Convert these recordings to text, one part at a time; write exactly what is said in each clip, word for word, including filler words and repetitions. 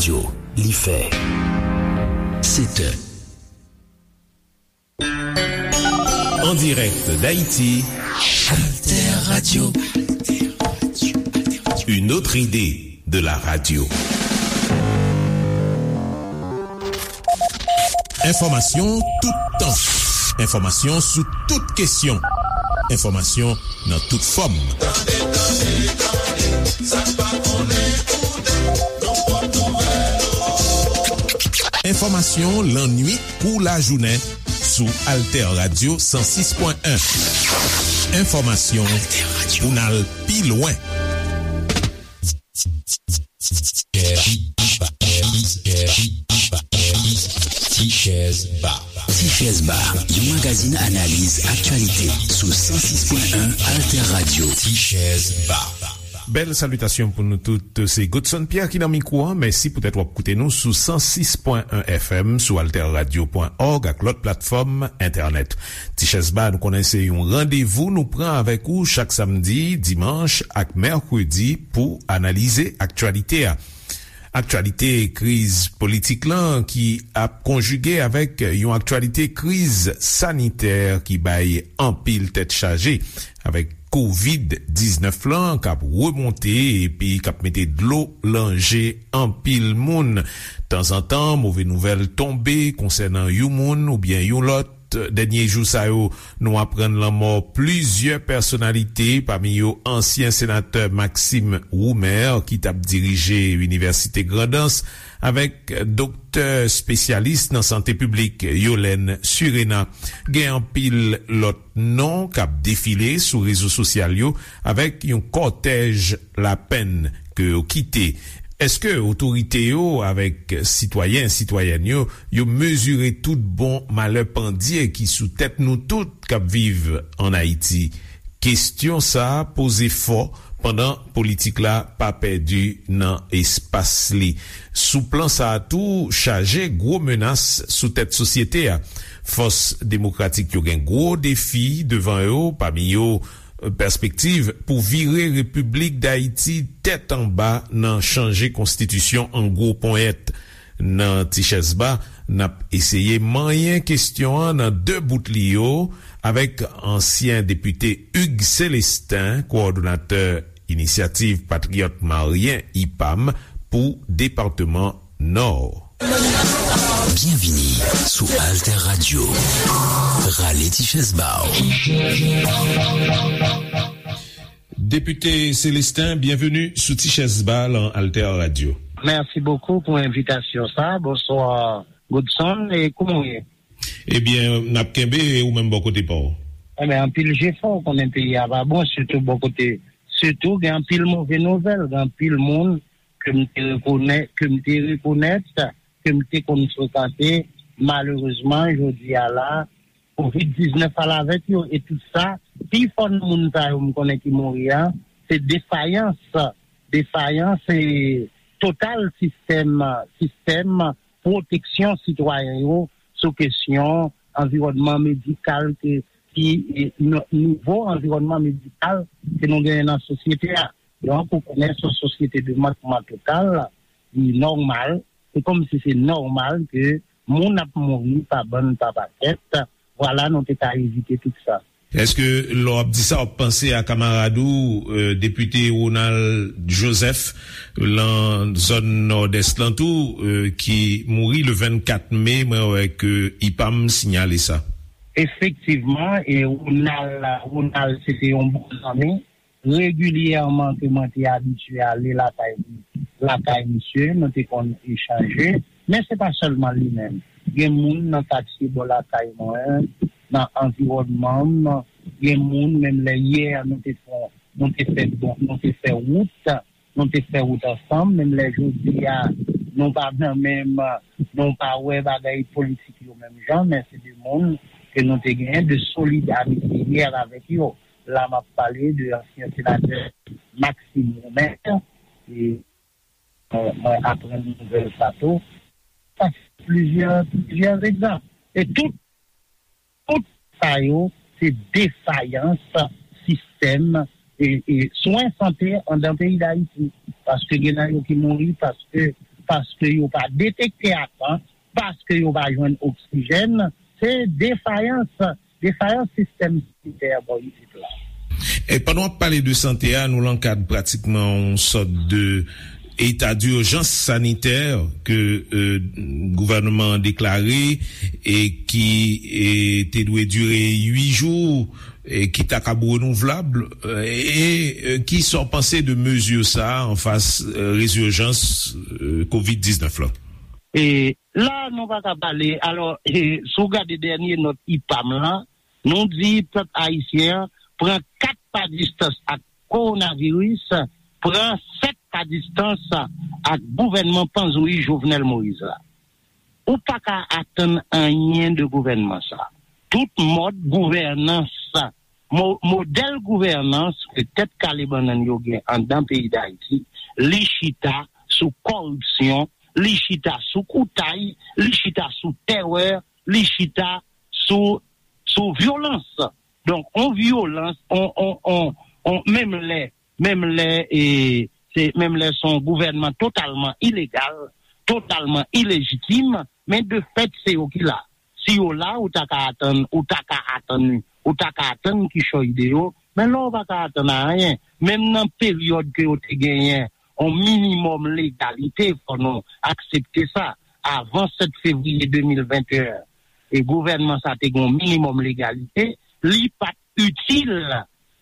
Yo, li fè sèt è. En direct d'Haïti, Alter Radio. Une autre idée de la radio. Enfòmasyon toutan. Enfòmasyon sou tout kesyon. Enfòmasyon nan tout fòm. Tande, tande, tande, sa n pa konnen koute, nou pot nouvèl. Enfòmasyon lannuit kou lajounen sou Alter Radio san sis pwen en. Enfòmasyon pou n al pi lwen. Tichèz Ba. Tichèz Ba, yon magazin analiz aktyalite sou san sis pwen en Alter Radio. Tichèz Ba. Bèl salitasyon pou nou tout. Se Godson Pierre ki nan mikwo an. Mèsi poutèt w ap koute nou sou san sis pwen en F M, sou alter radio pwen org ak lòt platfòm entènèt. Tichèz Ba, nou konnen se yon randevou nou pran avèk ou chak samdi, dimanch ak mèkredi pou analize aktyalite a. Aktyalite kriz politik lan ki ap konjige avèk yon aktyalite kriz sanitè ki bay anpil tèt chaje, avèk kovid diznèf lan k ap remonte epi k ap mete dlo lan je anpil moun. Tanzantan, move nouvèl tonbe konsènan yon moun oubyen yon lòt. Dènye jou sa yo, nou aprann lanmò plizyè pèsonalite, pami yo ansyen senatè Maxime Roumer, ki t ap dirije Inivèsite Grandans, avèk doktè espesyalis nan sante piblik Yolène Surena. Gen anpil lòt non k ap defile sou rezo sosyal yo, avèk yon kòtèj lapenn ke yo kite. Èske otorite yo avèk sitwayen, sitwayèn yo, yo mezire tout bon malè pandye ki sou tèt nou tout k ap viv ann Ayiti? Kesyon sa a poze fò pandan politik la pa pèdi nan espas li. Sou plan sa a tou, chaje gwo menas sou tèt sosyete a. Fòs demokratik yo gen gwo defi devan yo, pami yo, pèspektiv pou vire Repiblik Dayiti tèt anba nan chanje konstitisyon an gwo ponyèt. Nan Tichèz Ba, n ap eseye manyen kesyon an nan de bout li yo avèk ansyen depite Hugues Célestin, kowòdonatè Inisyativ Patriyòt Maryen, ipam, pou depatman Nò. Byenvini sou Alter Radio. Rale ti chèz ba w. Depite Célestin, byenveni sou Ti Chèz Ba lan Alter Radio. Mèsi bokou pou envitasyon sa. Bonswa, Godson, e kouman w ye? Ebyen, n ap kenbe, e ou menm bò kote pa w? Ebyen, anpil jefò, w konnen peyi a pa bon, sitou bò kote, sitou gen anpil move nouvèl, gen anpil moun ke m te rekonè-, ke m te rekonèt, ke m te konn frekante, malerezman, jodi a la, kovid diznèf al avèk yo, e tout sa, pi fò nan moun sa yo m konnen ki mouri a, se defayans, defayans e total sistèm, sistèm pwoteksyon sitwayen yo sou kesyon anviwònman medikal ke, ki, e, n-, nivo anviwònman medikal ke nou genyen nan sosyete a. Donk, ou konnen se yon sosyete de mantman total, li nòmal, se kòmsi se nòmal ke moun ap mouri pa bann, pa pakèt. Vwala, nou te ka evite tout sa. Èske lè w ap di sa, w ap panse a kamarad ou, e, depite Ronald Joseph, lan zòn Nòdès lan tou, e, ki mouri le vennkat me, mwen wè ke ipam sinyale sa. Efektivman, e Ronald, Ronald se te yon bon zanmi. Regilyèman ke mwen te abitye ale lakay li, lakay misye, nou te konn echanje. Men se pa sèlman li menm. Gen moun nan katye bò lakay mwen, nan anviwònman m, gen moun, menm lè yè nou te fè, nou te fè bon, nou te fè wout, nou te fè wout ansanm, menm lè jodi a, nou pa nan menm, nou pa wè bagay politik yo menm jan, men se de moun ke nou te genyen de solid amitye yè avèk yo. La, m ap pale de ansyen senatè Maxime Roumer, e mwen, mwen aprann nouvèl sa tou. Sa se plizyè, plizyè egzanp. E tout, tout sa yo, se defayans sistèm, e, e swen sante anndan peyi Dayiti. Paske gen nan yo ki mouri paske paske yo pa detekte a tan, paske yo pa jwenn oksijèn, se defayans, defayans sistèm sanitè bò isit la. E pandan w ap pale de sante a, nou lan kad pratikman yon sòt de eta dijans sanitè ke, euh, gouvènman an deklare e ki, e, te dwe dire uit jou, e ki ta kab renouvlab, e, e, e ki sa w panse de mezi sa a anfas, e, rezijans, e, kovid diznèf la? E la, nou pa ka pale. Alò, e, si w gade dènye nòt ipam lan, nou di pèp ayisyen an pran kat pa distans ak kowonaviris, pran sèt pa distans ak gouvènman panzouyi Jovenel Moïse la. Ou pa ka atann anyen de gouvènman sa. Tout mòd gouvènans, mo-, modèl gouvènans ke tèt kale bannann yo gen anndan peyi Dayiti, li chita sou kòripsyon, li chita sou koutay, li chita sou tèrè, li chita sou, sou vyolans. Donk, on vyolans, on, on, on, on, menm lè, menm lè, e, se, menm lè se yon gouvènman totalman ilegal, totalman ilejitim, men de fèt, se yo ki la. Si yo la, ou ta ka atann, ou ta ka atann, ou ta ka atann kichòy de yo, men la, ou pa ka atann anyen. Menm nan peryòd ke yo te genyen yon minimòm legalite, fò nou aksepte sa. Avan sèt fevriye de mil venteyen, e gouvènman sa te gen yon minimòm legalite, li pa t itil,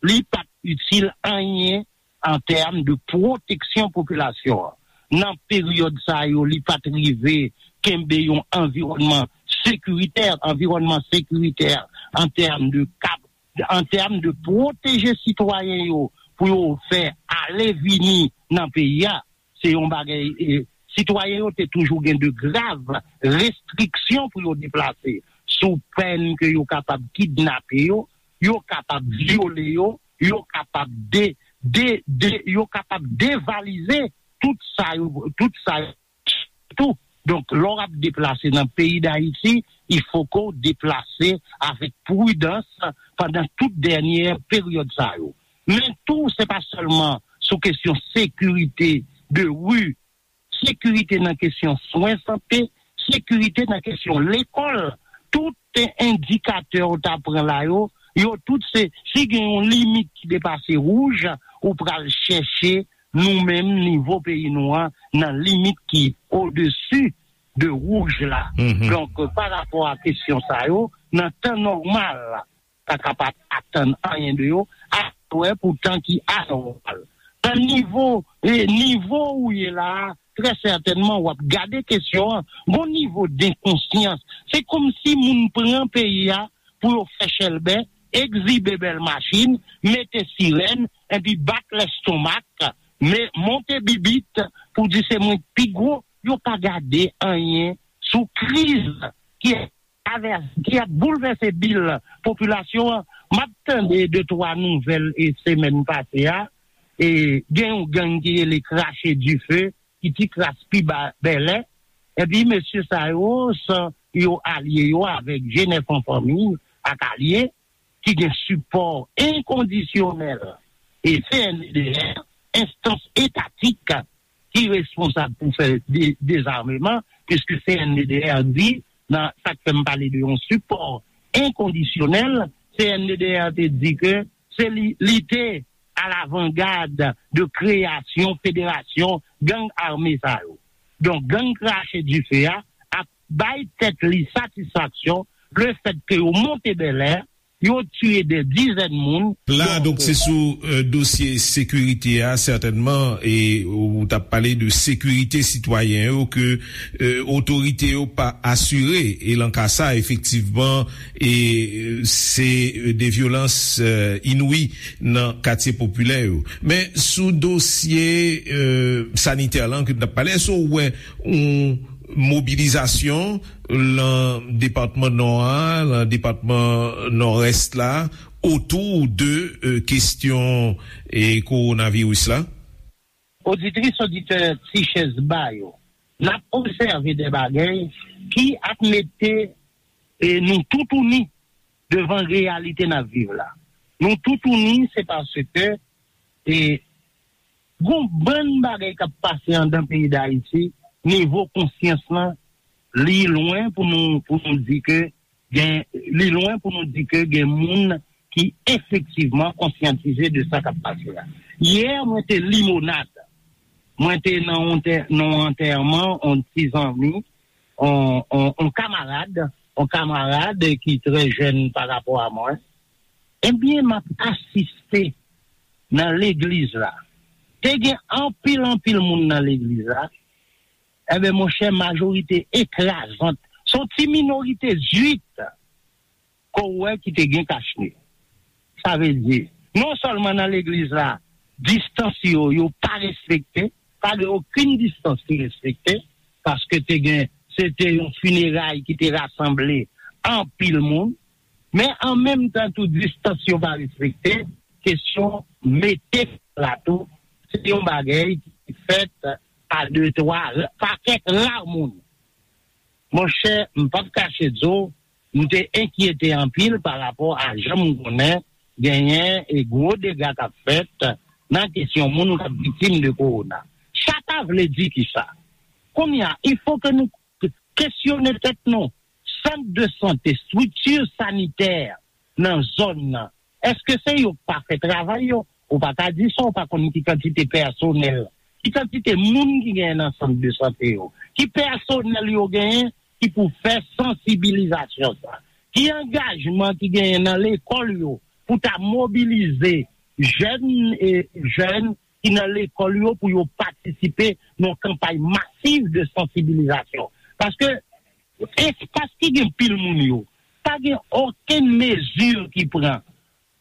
li pa t itil anyen an tèm de pwoteksyon popilasyon an. Nan peryòd sa yo, li pa t rive kenbe yon anviwònman sekiritè, anviwònman sekiritè an tèm de kab, an tèm de pwoteje sitwayen yo pou yo fè ale vini nan peyi a. Se yon bagay, e, sitwayen yo te toujou gen de grav restriksyon pou yo deplase, sou pèn ke yo kapab kidnape yo, yo kapab vyole yo, yo kapab de, de, de, yo kapab devalize tout sa yo, tout sa yo tou. Donk, lè w ap deplase nan peyi Dayiti, il faut que w deplase avèk pridans pandan tout dènye peryòd sa yo. Men tou, se pa sèlman sou kesyon sekirite de ri, sekirite nan kesyon swen sante, sekirite nan kesyon lekòl. Tout endikatè w ta pran la yo, yo tout se, si gen yon limit ki depase wouj, ou pral chèche nou menm nivo peyi nou an nan limit ki odesi de wouj la. Mhm. Donk, pa rapò a kesyon sa yo, nan tan nòmal, pa kapab atann anyen de yo, a wè pou tan ki anòmal. Nan nivo, e, nivo ou ye la a, trè sètènman, w ap gade kesyon an, gon nivo denkonsyans. Se kòmsi moun pran peyi a pou yo fè chèlbè, egzibe bèl machin, mete sirèn, epi bat lèstomak, men monte bibit pou di se mwen k pi gwo, yo pa gade anyen sou kriz ki ap travèse, ki ap boulvèse bil popilasyon an. M ap tande de twa nouvèl e semèn pase a, e gen yon gang ki rele Krache Dife, ki ti kras pi ba Bèlè. Epi mesye sa yo, san yo alye yo avèk G nèf an fanmi ak alye, ki gen sipò enkondisyonèl e C N D D R, enstans etatik ki responsab pou fè de-, dezameman, piske C N D D R di, nan sa k fè m pale de yon sipò enkondisyonèl, C N D D R te di ke se li, li te alavangad de kreyasyon federasyon gang ame sa yo. Donk, gang Krache Dife a ap bay tèt li satisfaksyon lefètke yo monte Bèlè, yo tiye dè dizèn moun. La, donk, se sou, euh, dosye sekirite a, sètènman, e ou t ap pale de sekirite sitwayen yo ke, euh, otorite yo pa asire. E lan ka sa, efektivman, e, euh, se, euh, de vyolans, euh, inouï nan katye popilè yo. Men sou dosye, euh, sanitè lan ke n ap pale, èske w wè yon mobilizasyon lan depatman Nò a, lan depatman Nòdès la, otou de, euh, kesyon, e, kowonaviris la? Oditris, oditè Ti Chèz Ba yo, n ap obsève de bagay ki ap mete, e, nou toutouni devan reyalite n ap viv la. Nou toutouni, se paske, e, gon bann bagay k ap pase anndan peyi Dayiti nivo konsyans lan, li lwen pou nou, pou nou di ke gen, li lwen pou nou di ke gen moun ki efektivman konsyantize de sa k ap pase a. Yè, mwen te Limonad. Mwen te nan yon tè-, nan yon antèman, yon ti zanmi, yon, yon, yon kamarad, yon kamarad ki trè jèn pa rapò a mwen. Ebyen, m ap asiste nan legliz la. Te gen anpil, anpil moun nan legliz la. Ebyen, monchè, majorite ekrazant, se yon ti minorite zwit ke w wè ki te gen kachne. Sa vle di, non sèlman nan legliz la, distans yo, yo pa respekte, pa gen okenn distans ki respekte, paske te gen, se te yon fineray ki te rasanble anpil moun, men an menm tan tou distans yo pa respekte, kesyon mete la tou, se yon bagay ki fèt pa de, twa, pa kèk ra moun. Monchè, m p ap kache di w, m te enkyete anpil pa rapò a jan m konnen genyen e gwo dega k ap fèt nan kesyon moun k ap viktim de kowona. Sa ta vle di kisa? Kounye a, il faut que nou kesyone tèt nou. Sant de sante, estrikti sanitè nan zòn nan, èske se yo k pa fè travay yo? Ou pa ka di sa, ou pa konn ki kantite pèsonèl, ki kantite moun ki genyen nan sant de sante yo, ki pèsonèl yo genyen ki pou fè sansibilizasyon sa, ki angajman ki genyen nan lekòl yo pou ta mobilize jèn e jèn ki nan lekòl yo pou yo patisipe nan kanpay masiv de sansibilizasyon. Paske espas ki gen pil moun yo, pa gen okenn mezi ki pran.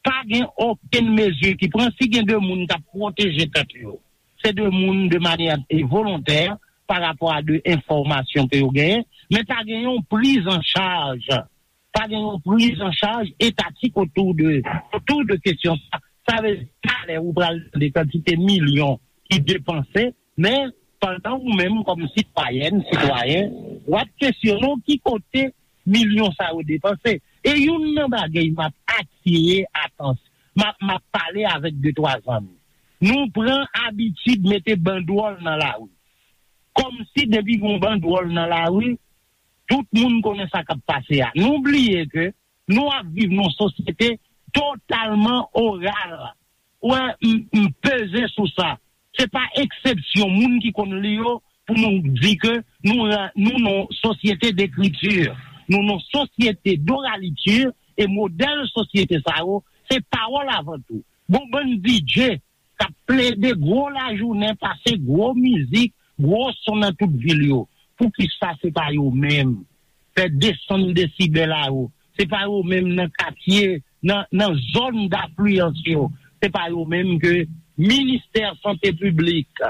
Pa gen okenn mezi ki pran. Si gen de moun k ap pwoteje tèt yo, se de moun de manyè volontè pa rapò a de enfòmasyon ke yo genyen, men pa gen yon priz an chaj, pa gen yon priz an chaj etatik otou de, otou de kesyon sa. Sa vle di, talè ou pral tande kantite milyon ki depanse, men pandan ou menm kòm sitwayèn, sitwayen, w ap kesyone w ki kote milyon sa yo depanse. E youn nan bagay m ap atire atansyon, m ap, m ap pale avèk de twa zanmi. Nou pran abitid mete bandwòl nan lari. Kòmsi depi gen yon bandwòl nan lari, tout moun konnen sa k ap pase a. Nou bliye ke nou ap viv nan yon sosyete totalman oral. Ou wè, m, m peze sou sa. Se pa eksepsyon moun ki konn li yo pou nou di ke nou, nou nan yon sosyete dekriti, nou nan yon sosyete doraliti, e modèl sosyete sa yo, se pawòl avan tou. Gon bann D J k ap plede gwo lajounen, pase gwo mizik, gwo son nan tout vil yo. Poukisa se pa yo menm? Fè desann desibèl a yo. Se pa yo menm nan katye, nan, nan zòn dafliyans yo. Se pa yo menm ke ministè sante piblik,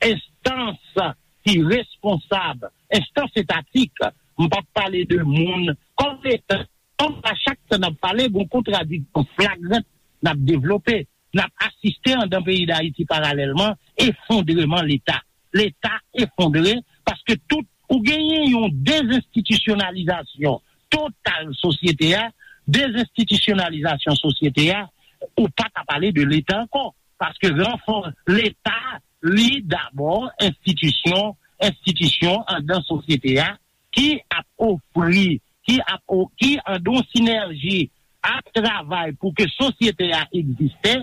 enstans ki responsab, enstans etatik, m p ap pale de moun, kòm Leta, kòm a chak tan n ap pale, gon kontradiksyon flagrant n ap devlope. N ap asiste anndan peyi Dayiti paralèlman efondreman Leta. Leta efondre paske tout, ou genyen yon dezenstitisyonalizasyon total sosyete a, dezenstitisyonalizasyon sosyete a, ou pa ka pale de Leta ankò. Paske ranfò Leta, li dabò enstitisyon, enstitisyon anndan sosyete a ki ap ofri, ki ap o-, ki anndan yon sinèji ap travay pou ke sosyete a egziste,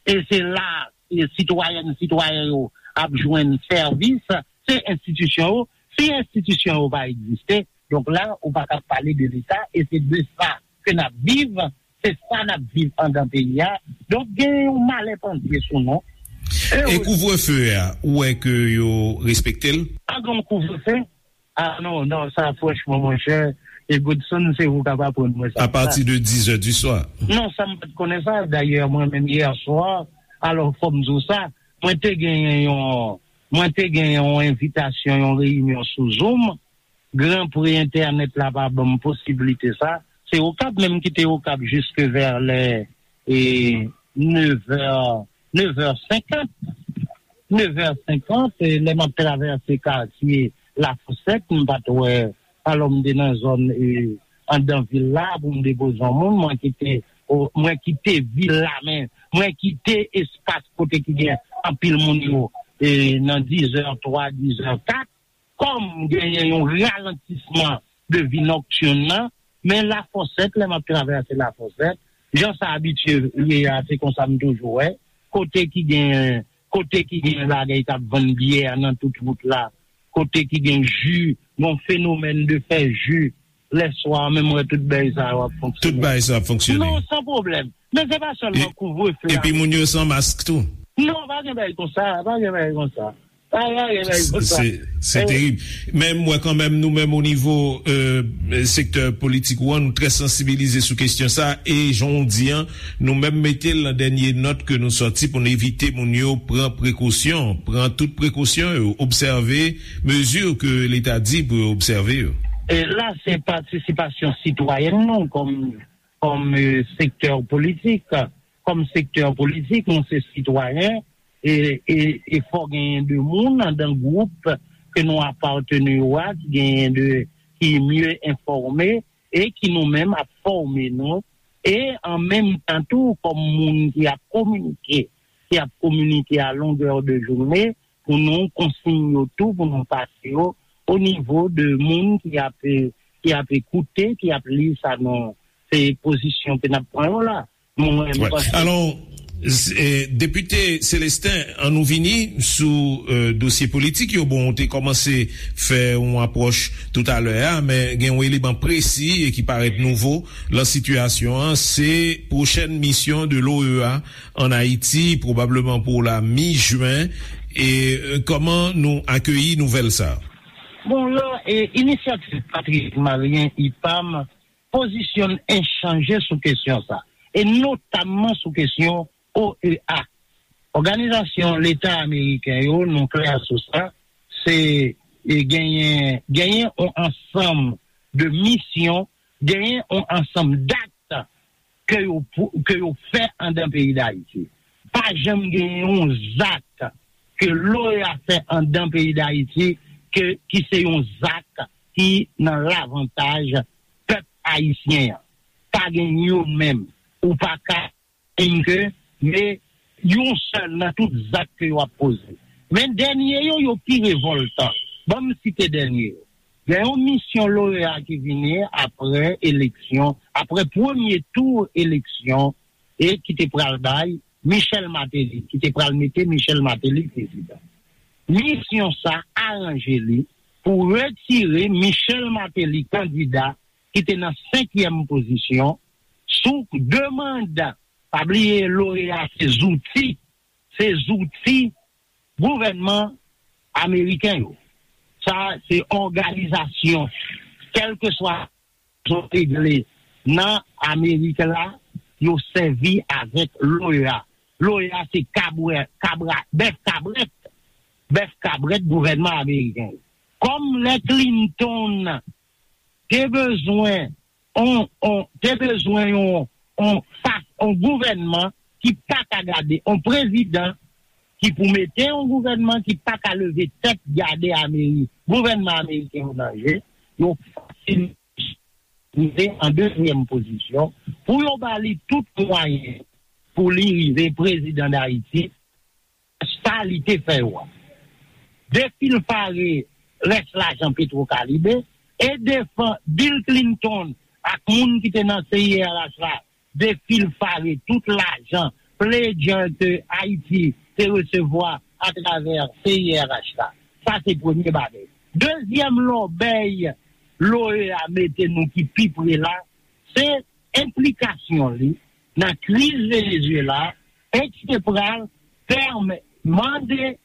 e se la, e sitwayèn, sitwayen yo ap jwenn sèvis, se enstitisyon yo. Si enstitisyon yo pa egziste, donk la, ou pa ka pale de Leta, e se de sa ke n ap viv, se sa n ap viv anndan peyi a. Donk, gen yon malè pandye sou nou. E E wi. Kouvrefe a, ou wè ke yo respekte l? Pa gen yon kouvrefe. Ah non, non, sa franchman, monchè, e Godson, se ou k ap aprann mwen sa. A pati de dizè di swa. Non, sa m pa t konnen sa. Dayè, mwen menm, yè swa, alò, fò m di w sa, mwen te genyen yon, mwen te genyen yon envitasyon, yon reyinyon sou Zoom. Gran pre entènèt la pa ban m posiblite sa. Se Okap menm ki te Okap jiske vè lè, e, nevè, nevè senkant. Nevè senkant, e, lè m ap travèse katye Lafosèt, m pa t wè, alò m te nan zòn, e, anndan vil la pou m depoze yon moun, mwen kite, o, mwen kite vil la, men mwen kite espas kote ki gen anpil moun yo, e, nan dizè twa, dizè kat. pa m genyen yon ralantisman de vi nòktin nan, men Lafòsèt, lè m ap travèse Lafòsèt, jan sa abitye ye a, se konsa m toujou wè, kote ki gen, kote ki gen bagay k ap vann byè nan tout wout la, kote ki gen ji, gon fenomèn de fè ji, lèswa, menm wè tout bagay sa yo ap fonksyone. Tout bagay sa ap fonksyone. Non, san pwoblèm. Men se pa sèlman kouvrefe a. Epi moun yo san mask tou. Non, pa gen bagay konsa, pa gen bagay konsa. Pa gen bagay konsa. Se se terib. Men m wè kanmenm nou menm o nivo euh, sektè politik ou an, nou trè sansibilize sou kesyon sa. E jan w di an, nou menm mete l nan dènye nòt ke nou sòti pou n evite moun yo pran prekosyon, pran tout prekosyon yo, obsève mezi ke Leta di pou yo obsève yo. E la, se patisipasyon sitwayèn nou kòm kòm euh, sektè politik. Kòm sektè politik, nou se sitwayen, e, e, e fò genyen de moun andan gwoup ke nou apateni yo a, ki genyen de, ki mye enfòme, e ki nou menm ap fòme nou, e an menm tan tou, kòm moun ki ap kominike, ki ap kominike a longè de jounen, pou nou konsiy yo tou, pou nou pase yo o nivo de moun ki ap, ki ap ekoute, ki ap li sa nou, se pozisyon ke n ap pran yo la. Mwen, m panse. Alò, Depite Celestin, an nou vini sou euh, dosye politik yo. Bon, ou te kòmanse fè yon apwòch toutalè a, men gen yon eleman presi e ki parèt nouvo lan sitiyasyon an, se pwochèn misyon de l'OEA an Ayiti, pwobableman pou la mi jen. E euh, kòman nou akeyi nouvèl sa? Bon, la, e, inisyativ Patriyòt Malyen, ipam, pozisyonn en chanje sou kesyon sa, e notamman sou kesyon OEA. Òganizasyon Leta Ameriken yo, nou klè sou sa, se e genyen, genyen yon ansanm de misyon, genyen yon ansanm dat ke yo, ke yo fè andan peyi Dayiti. Pa janm genyen yon zak ke l'OEA fè andan peyi Dayiti ke, ki se yon zak ki nan lavantaj pèp ayisyen an. Pa gen youn menm. Ou pa ka menm ke, men yon sèl nan tout zak ke yo ap poze. Men dènye yo, yo pi revòltan. Ban m site dènye yo. Gen yon misyon l'OEA ki vini apre eleksyon, apre premye tou eleksyon, e ki te pral bay Michel Martelly, ki te pral mete Michel Martelly prezidan. Misyon sa aranje li pou retire Michel Martelly kandida ki te nan senkyèm pozisyon sou demann. Pa bliye, l'OEA se zouti, se zouti gouvènman ameriken yo. Sa se òganizasyon, kèlkeswa zon regle nan Amerik la, yo sèvi avèk l'OEA. L'OEA se kabwè, kabra, bèf kabrèt, bèf kabrèt gouvènman ameriken. Kòm lè Clinton te bezwen on, on, te bezwen yon, on, fas, on gouvènman ki pa ka gade, on prezidan ki pou mete yon gouvènman ki pa ka leve tèt gade Amerik, gouvènman ameriken yo nan je, yo fasil rive an dezyèm pozisyon pou yo ba li tout mwayen pou li rive prezidan Dayiti, sa li te fè yo a. Defilfare rès lajan Petro Karibe e defan Bill Clinton ak moun ki te nan C I R H la, defilfare tout lajan pledger ke Ayiti te resevwa atravè C I R H la. Sa se premye bagay. Dezyèm lòbèy l'OEA mete nou ki pi pre la, se enplikasyon li nan kriz Venezuela e ki te pral pèmèt mande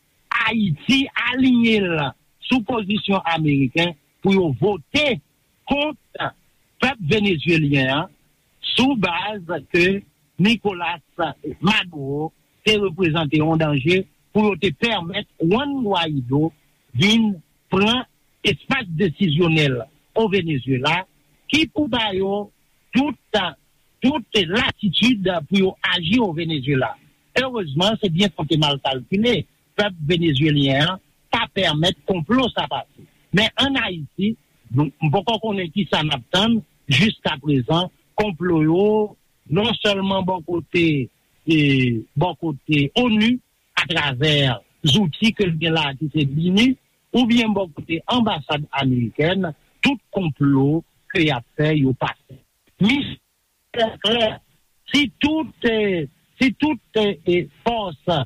Ayiti aliyen l sou pozisyon ameriken pou yo vote kont pèp venezuelyen an sou baz ke Nicolas Maduro te reprezante yon danje pou yo te pèmèt Juan Guaido vin pran espas desizyonèl o Venezuela ki pou ba yo tout, tout latitid pou yo aji o Venezuela. Erezman, se byen konte mal kalkile. Pèp venezuelyen an pa pèmèt konplo sa pase. Men ann Ayiti, nou, m poko konnen kisa n ap tann, jiska prezan, konplo yo, non sèlman bò kote, e, bò kote onu, atravè zouti ke l gen la ki se BINUH, oubyen bò kote anbasad amerikèn, tout konplo ke y ap fè, yo pase. Misyon klè, si tout, eh, si tout, eh, eh, fòs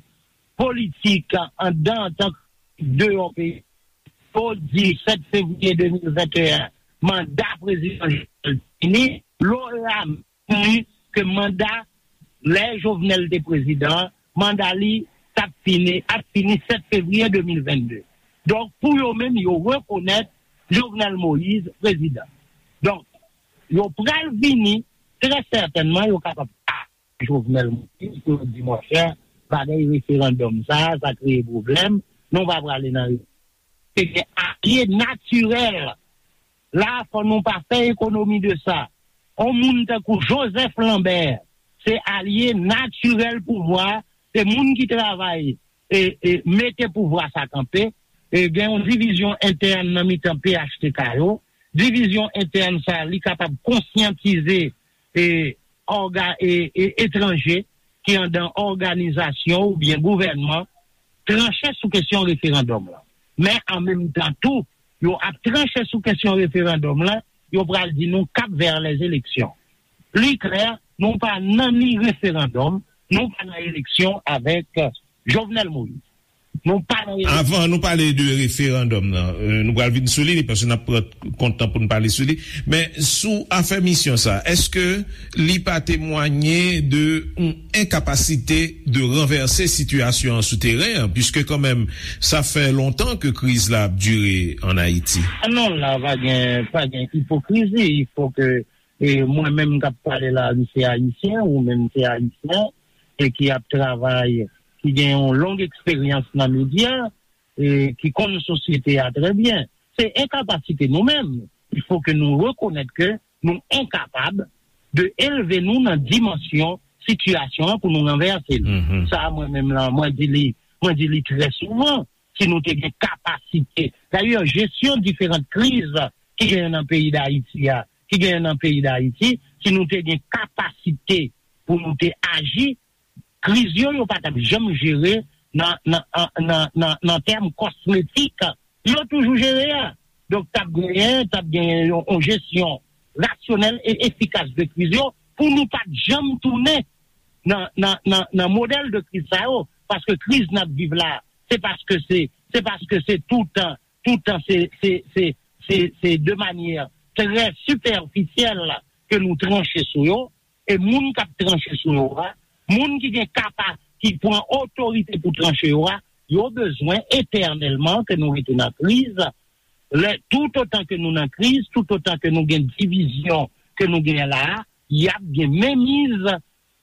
politik anndan antanke deyò peyi, yo di sèt fevriye de mil venteyen, manda prezidan Jovenel fini, lora di ke manda lè Jovenel te prezidan, manda li t ap fini, ap fini sèt fevriye de mil vennde. Donk, pou yo menm, yo rekonèt Jovenel Moïse prezidan. Donk, yo pral vini, trè sètènman, yo kapab pa Jovenel Moïse, pou yo di, monchè, bagay referandòm sa, sa kreye pwoblèm, nou pa prale nan. Se gen alye natirèl. La, fò nou pa fè ekonomi de sa. On moun tankou Joseph Lambert, se alye natirèl pouvwa, se moun ki travay e, e mete pouvwa sa kanpe. E gen yon divizyon entèn nan mitan P H T K yo. Divizyon entèn sa, li kapab konsyantize e, òga, e, e etranje ki anndan òganizasyon oubyen gouvènman tranche sou kesyon referandòm lan. Men an menm tan tou, yo ap tranche sou kesyon referandòm lan, yo pral di nou kap vè lèzeleksyon. Li klè, nou pa nan ni referandòm, nou pa nan eleksyon avèk Jovenel Moïse. Nou pa nan eleksyon. Avan nou pale de referandòm nan, euh, nou pral vin sou li, paske n ap pran kont tan pou n pale sou li. Men sou afè misyon sa, èske li pa temwanye de yon enkapasite de ranvèse sitiyasyon an sou teren an, piske kanmenm, sa fè lontan ke kriz la ap dire ann Ayiti? Ah non, la pa gen, pa gen ipokrizi. Il faut que, e mwen menm k ap pale la, li se ayisyen, ou menm se ayisyen, e ki ap travay, ki gen yon long eksperyans nan medya, e ki konn sosyete a trè byen. Se enkapasite nou menm. Il faut que nou rekonèt ke nou enkapab de elve nou nan dimansyon sitiyasyon an pou nou ranvèse l. Mhm. Sa, mwen menm lan, mwen di li, mwen di li trè souvan, si nou te gen kapasite. Dayè, jesyon diferan kriz ki genyen nan peyi Dayiti a, ki genyen nan peyi Dayiti, si nou te gen kapasite pou nou te aji, kriz yo, yo pa t ap janm jere nan, nan, an- nan, nan, nan tèm kosmetik, yo toujou jere a. Donk, t ap genyen, t ap genyen yon, yon jesyon rasyonèl e efikas de kriz yo pou nou pa t janm tounen nan, nan, nan, nan modèl de kriz sa yo. Paske kriz n ap viv la, se paske se, se paske se toutan, toutan se, se, se, se, se de manyè trè sipèfisyèl ke nou tranche sou yo. E moun k ap tranche sou yo a, moun ki gen kapa, ki pran otorite pou tranche yo a, yo bezwen etènèlman ke nou rete nan kriz. Lè, toutotan ke nou nan kriz, toutotan ke nou gen divizyon ke nou gen la a, y ap gen menmiz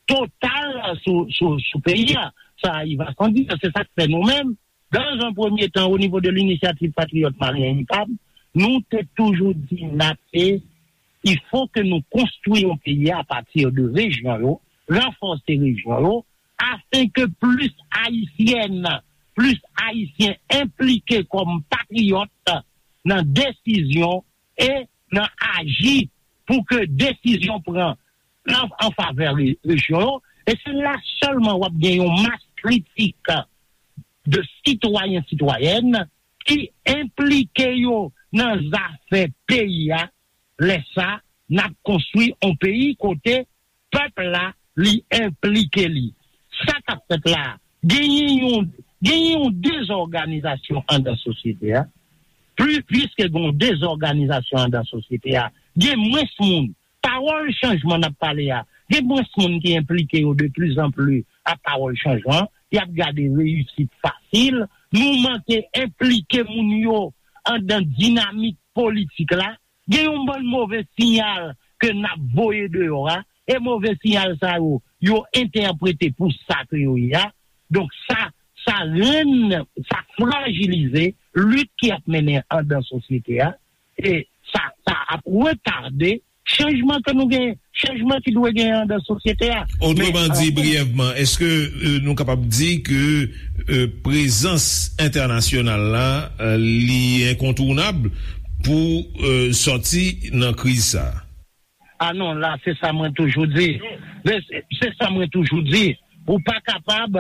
total sou, sou, sou peyi a. Sa, il va sans dire, se sa k fè nou menm, dans un premier temps, au niveau de l'Initiative Patriote Malien, I P A M, nou te toujou di n ape, il faut que nou konstwi yon peyi a pati de rejyon yo, ranfòse rejyon yo, afin que plis Ayisyèn, plis Ayisyen enplike kòm patriyòt nan desizyon e nan aji pou ke desizyon pran an, an favè re- rejyon yo. E se la sèlman w ap gen yon mas kritik de sitwayen, sitwayèn ki enplike yo nan zafè peyi a. Lè sa, n ap konstwi yon peyi kote pèp la, li enplike li. Sa k ap fèt la, genyen yon, genyen yon dezòganizasyon anndan sosyete a. Pli, piske gen yon dezòganizasyon anndan sosyete a, gen mwens moun. Pawòl chanjman n ap pale a, gen mwens moun ki enplike yo de pli zan pli a pawòl chanjman. Y ap gade reyisit fasil. Nou manke enplike moun yo anndan dinamik politik la. Gen yon bann move siyal ke n ap voye deyò a, e move siyal sa yo, yo entèprete pou sa ke yo ye a. Donk sa, sa rann, sa frajilize lit ki ap mennen anndan sosyete a, e sa, sa ap retade chanjman ke nou gen, chanjman ki dwe genyen anndan sosyete a. Otreman di, briyèvman, èske, euh, nou kapab di ke, euh, prezans entènasyonal la, euh, li enkontounab pou, euh, sòti nan kriz sa a? Ah non, la, se sa mwen toujou di. Se, se sa mwen toujou di. Ou pa kapab,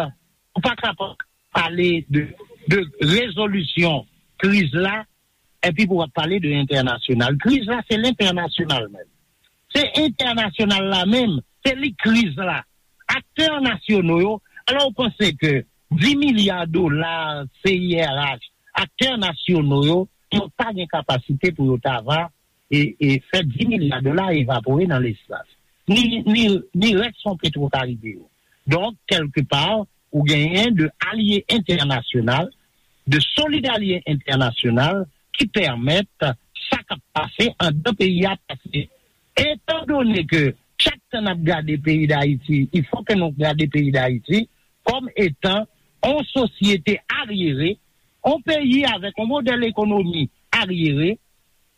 ou pa kapab pale de, de rezolisyon kriz la, epi pou w ap pale de entènasyonal. Kriz la, se lentènasyonal menm. Se entènasyonal la menm, se li kriz la. Aktè nasyono yo, alò w panse ke dis milya dola C I R H, aktè nasyono yo, yo pa gen kapasite pou yo ta va e, e fè dis milya dola evapore nan lespas. Ni, ni, ni rès fon Petwokaribe yo. Donk, kèlkepa, ou genyen de alye entènasyonal, de solid alye entènasyonal ki pèmèt sa k ap pase anndan peyi a pase. Etandone ke chak tan n ap gade peyi Dayiti, il faut que nou gade peyi Dayiti kòm etan on sosyete aryere, on peyi avèk on modèl ekonomi aryere,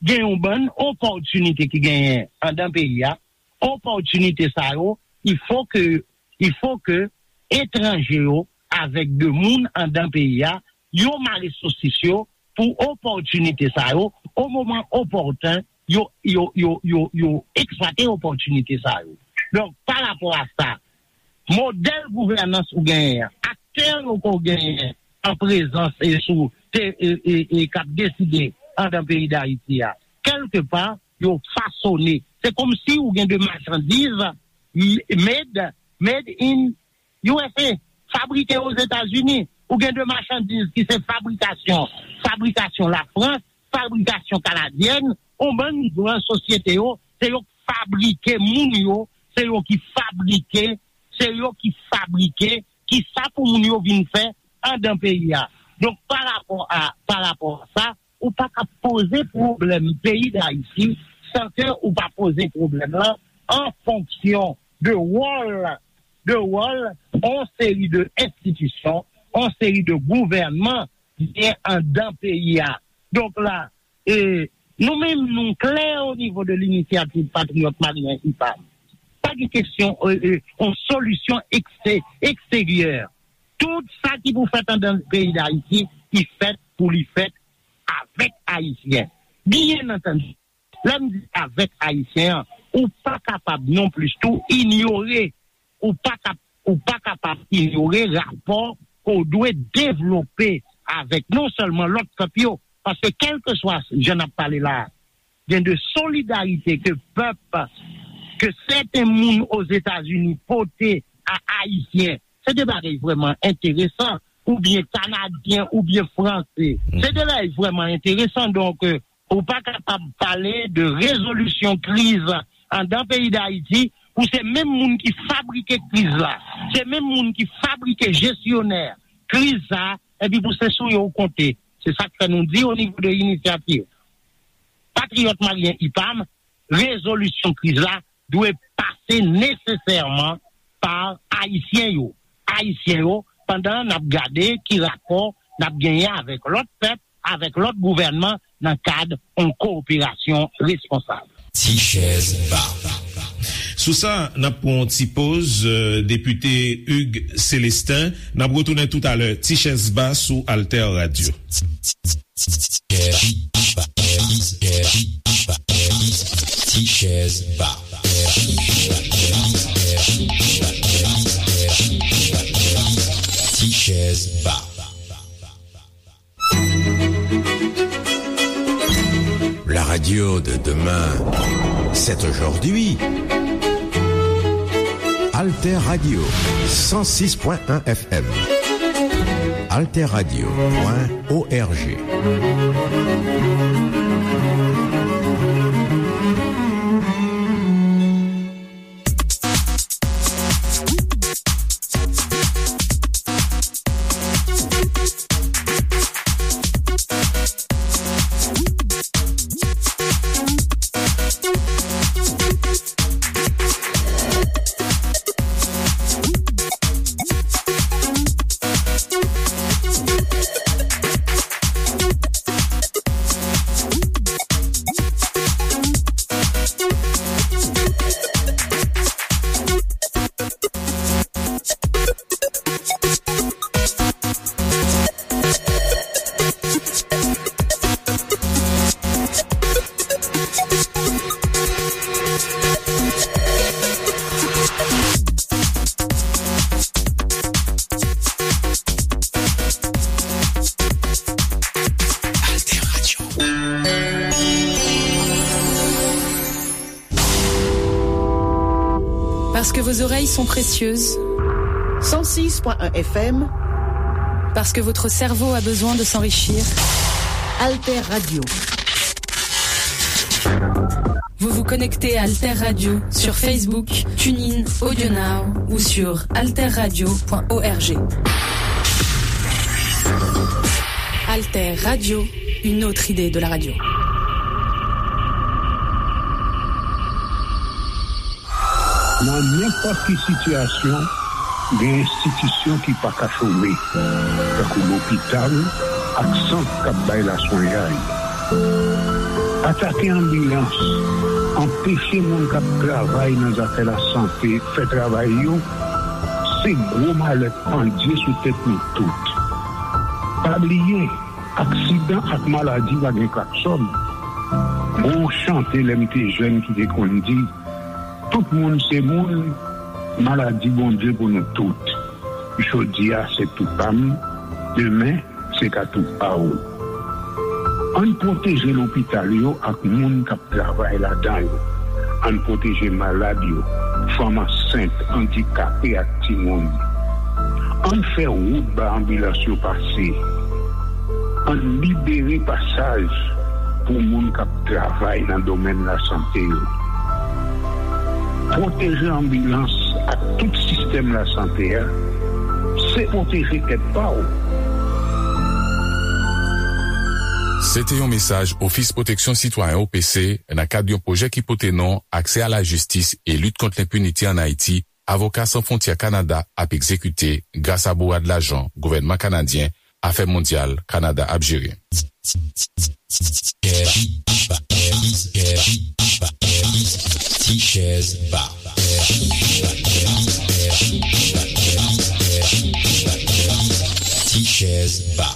gen yon bann opòtinite ki genyen anndan peyi a, opòtinite sa yo, il faut que, il faut que etranje yo avèk de moun anndan peyi a, yo mare sosis yo pou opòtinite sa yo, o moman opòten, yo, yo, yo, yo, yo eksplwate opòtinite sa yo. Donk, pa rapò a sa, modèl gouvènans ou genyen an, aktè yo ke w genyen an prezans e sou, te, e, e, e k ap deside anndan peyi Dayiti a, kèlkepa, yo fasone. Se kòmsi ou gen de machandiz m-, made, made in U S A, fabrike Ozetazini. Ou gen de machandiz ki se fabrikasyon, fabrikasyon Lafrans, fabrikasyon kanadyèn, on bann gran sosyete yo, se yo k fabrike moun yo, se yo ki fabrike, se yo ki fabrike kisa pou moun yo vin fè anndan peyi a. Donk, pa rapò a, pa rapò a sa, ou pa ka poze pwoblèm peyi Dayiti san ke ou pa poze pwoblèm lan an fonksyon de wòl, de wòl on seri de enstitisyon, on seri de gouvènman ki gen anndan peyi a. Donk la, e, nou menm, nou klè o nivo de Linisyativ Patriyòt Malyen, I P A M. Pa gen kesyon, e, e, on solisyon ekste-, eksteryè. Tout sa ki pou fèt anndan peyi Dayiti, ki fèt pou li fèt avèk Ayisyen. Byen antandi, lè m di avèk Ayisyen an, ou pa kapab non plis tou inyore, ou pa kap-, ou pa kapab inyore rapò ke w dwe devlope avèk non sèlman lòt pèp yo, paske kèlkeswa jan n ap pale la a, gen de solidarite ke pèp, ke sèten moun Ozetazini pote a Ayisyen. Se de bagay vrèman enteresan, oubyen Kanadyen, oubyen Franse. Se de bagay vrèman enteresan. Donk, e, ou pa kapab pale de rezolisyon kriz anndan peyi Dayiti pou se menm moun ki fabrike kriz la, se menm moun ki fabrike jesyonè kriz sa, epi pou se sou yo w konte. Se sa k fè nou di o nivo de Inisyativ Patriyòt Malyen, I P A M, rezolisyon kriz la dwe pase nesesèman pa Ayisyen yo. Ayisyen yo, pandan n ap gade ki rapò n ap genyen avèk lòt pèp, avèk lòt gouvènman nan kad yon kowoperasyon responsab. Ti chèz ba. Sou sa, n ap pran yon ti poz, euh, depite Hugues Célestin. N ap retounen toutalè. Ti chèz ba sou Alter Radio. Ti chèz ba. Ti chèz ba. La radio de demain, c'est aujourd'hui. Alter Radio, cent six point un F M. Alter Radio point O R G. Vos oreilles sont précieuses. Cent six point un F M. Parce que votre cerveau a besoin de s'enrichir. Alter Radio. Vous vous connectez à Alter Radio sur Facebook, TuneIn, AudioNow ou sur alterradio point org. Alter Radio, une autre idée de la radio. Nan nenpòt ki sitiyasyon, gen enstitisyon ki pa ka chome, tankou lopital ak sant k ap bay laswenyay. Atake anbilans, anpeche moun k ap travay nan zafè lasante fè travay yo, se gwo malè pandye sou tèt nou tout. Pa bliye, aksidan ak maladi pa gen klaksòn. Gon chante lè m te jèn ki te konn di, tout moun se moun, maladi Bondye pou nou tout. Jodi a se tou pa m, demen se ka tou pa w. Ann pwoteje lopital yo ak moun k ap travay ladan yo. Ann pwoteje malad yo, fanm ansent, andikape ak timoun. Ann fè wout ba anbilans yo pase. Ann libere pasaj pou moun k ap travay nan domèn lasante yo. Pwoteje anbilans ak tout sistèm lasante a, se pwoteje tèt pa w. Se te yon mesaj Ofis Pwoteksyon Sitwayen, O P C, nan kad yon pwojè ki pote non Aksè a la jistis e lit kont lenpinite ann Ayiti, Avoka San Fwontyè Kanada ap egzekite gras a bourad lajan gouvènman kanadyen Afè Mondyal Kanada ap jere. Ti chèz ba. Ti chèz ba.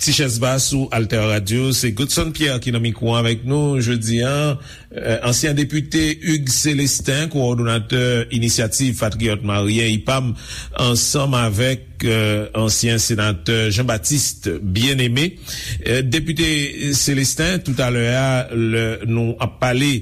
Ti chèz ba sou Alter Radio, se Godson Pierre ki nan mikwo avèk nou jodi a. Euh, ansyen depite Hugues Célestin, kowòdonatè Inisyativ Patriyòt Maryen, I P A M, ansanm avèk, euh, ansyen senatè Jean-Baptiste Bien-Aimé. Euh, depite Célestin, toutalè a, lè nou ap pale,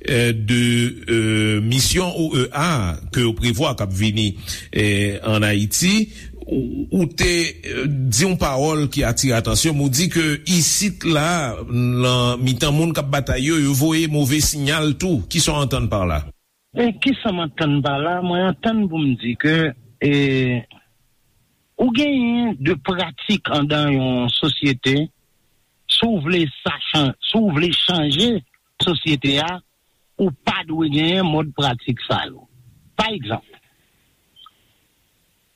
euh, de, euh, misyon O E A ke yo prevwa k ap vini, euh, ann Ayiti, ou, ou te, euh, di yon pawòl ki atire atansyon m, ou di ke isit la, nan mitan moun k ap batay yo, yo voye move siyal tou. Kisa w antann pa la? E kisa m antann pa la? Mwen antann pou m di ke, e, ou genyen de pratik andan yon sosyete, si w vle sa chan-, si w vle chanje sosyete a, ou pa dwe genyen mòd pratik sa yo. Pa egzanp,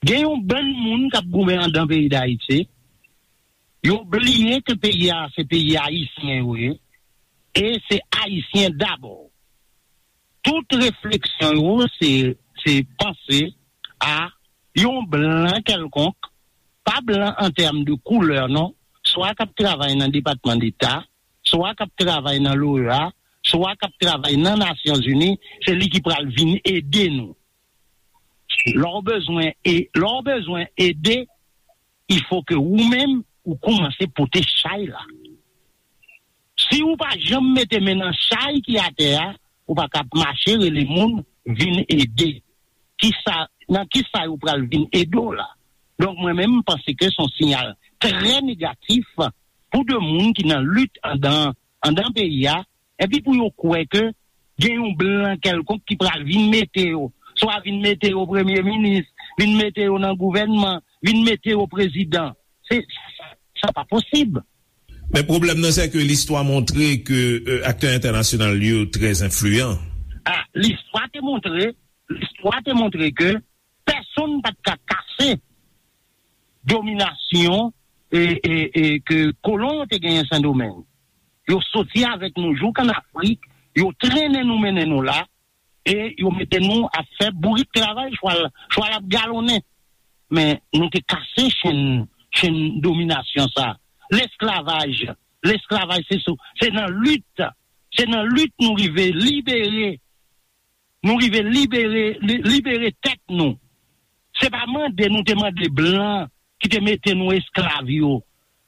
gen yon bann moun k ap goumen andan peyi Dayiti, yo bliye ke peyi a se peyi ayisyen yo ye, e se ayisyen dabò. Tout refleksyon yo se, se panse a yon blan kèlkonk, pa blan an tèm de koulè non, swa k ap travay nan Depatman Deta, swa k ap travay nan l'O E A, swa k ap travay nan Nasyonzini, se li ki pral vin ede nou. Lè w bezwen e-, lè w bezwen ede, il faut que ou menm ou kòmanse pote chay la. Si ou pa janm mete men nan chay ki atè a, ou pa ka ap mache rele moun vin ede. Kisa, nan kisa yo pral vin ede w la? Donk mwen menm m panse ke se yon siyal trè negatif pou de moun ki nan lit andan, andan peyi a, epi pou yo kwè ke gen yon blan kèlkonk ki pral vin mete yo, swa vin mete yo premye minis, vin mete yo nan gouvènman, vin mete yo prezidan. Se, sa pa posib. Men pwoblèm nan, se ke listwa montre ke, euh, aktè entènasyonal yo trè enfliyan. Ah, listwa te montre, listwa te montre ke pèsonn pa t ka kase dominasyon e, e, e ke kolon yo te genyen Sendomeng. Yo soti avèk nou jouk ann Afrik, yo trennen nou, mennen nou la, e yo mete nou ap fè bourik travay, chwal, chwal ap galonnen. Men nou te kase chenn, chenn dominasyon sa. Lesklavaj, lesklavaj se sou, se nan lit, se nan lit nou rive libere, nou rive libere, li-, libere tèt nou. Se pa mande nou te mande blan ki te mete nou esklav yo,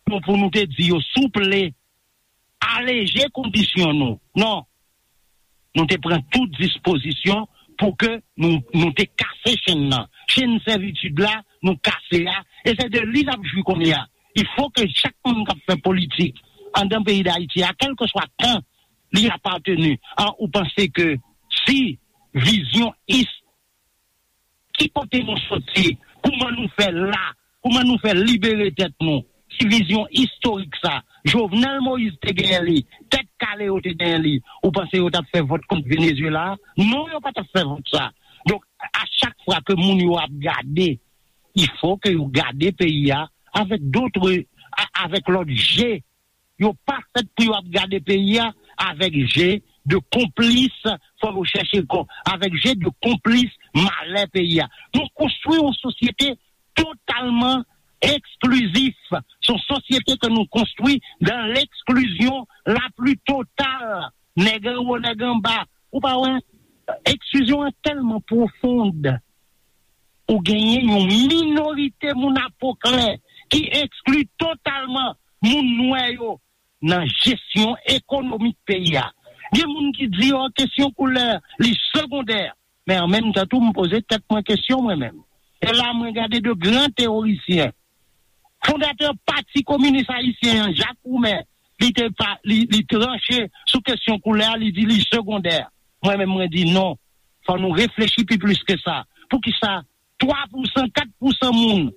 pou, pou nou te di yo, souple, aleje kondisyon nou. Non. Nou te pran tout dispozisyon pou ke nou, nou te kase chenn nan. Chenn sèvitid la, nou kase a, e se de li n ap jwi kounye a. Il faut que chak moun k ap fè politik anndan peyi Dayiti a, kèlkeswa kan li apateni, a, ou panse ke si vizyon is-, ki kote nou soti, kouman nou fè la, kouman nou fè libere tèt nou, si vizyon istorik sa, Jovenel Moïse te genyen li, Tèt Kale yo te genyen li, ou panse yo t ap fè vòt kont Venezuela a? Non, yo pa t ap fè vòt sa. Donk, a chak fwa ke moun yo ap gade, il faut que yo gade peyi a avèk dotre, a- avèk lòt je. Yo pa fèt pou yo ap gade peyi a avèk je de konplis, fò yo chèche kò, avèk je de konplis malè peyi a. Nou konstwi yon sosyete totalman eksklizif. Se yon sosyete ke nou konstwi dans l'exclusion la plus totale. Nèg anwo, nèg anba. Ou pa wè, eksklizyon an tèlman pwofond. Ou genyen yon minorite moun a po klè ki ekskli totalman moun nwè yo nan jesyon ekonomik peyi a. Gen moun ki di, oh, kesyon koulè, li segondè. Men an menm tan tou, m poze tèt mwen kesyon mwen menm. E la, mwen gade de gran teorisyen. Fondatè Pati Kominis Ayisyen an, Jacques Roumain, li te pa, li, li tranche sou kesyon koulè a, li di li segondè. Mwen menm, mwen di non. Fò nou reflechi pi plis ke sa. Poukisa twa pousan, kat pousan moun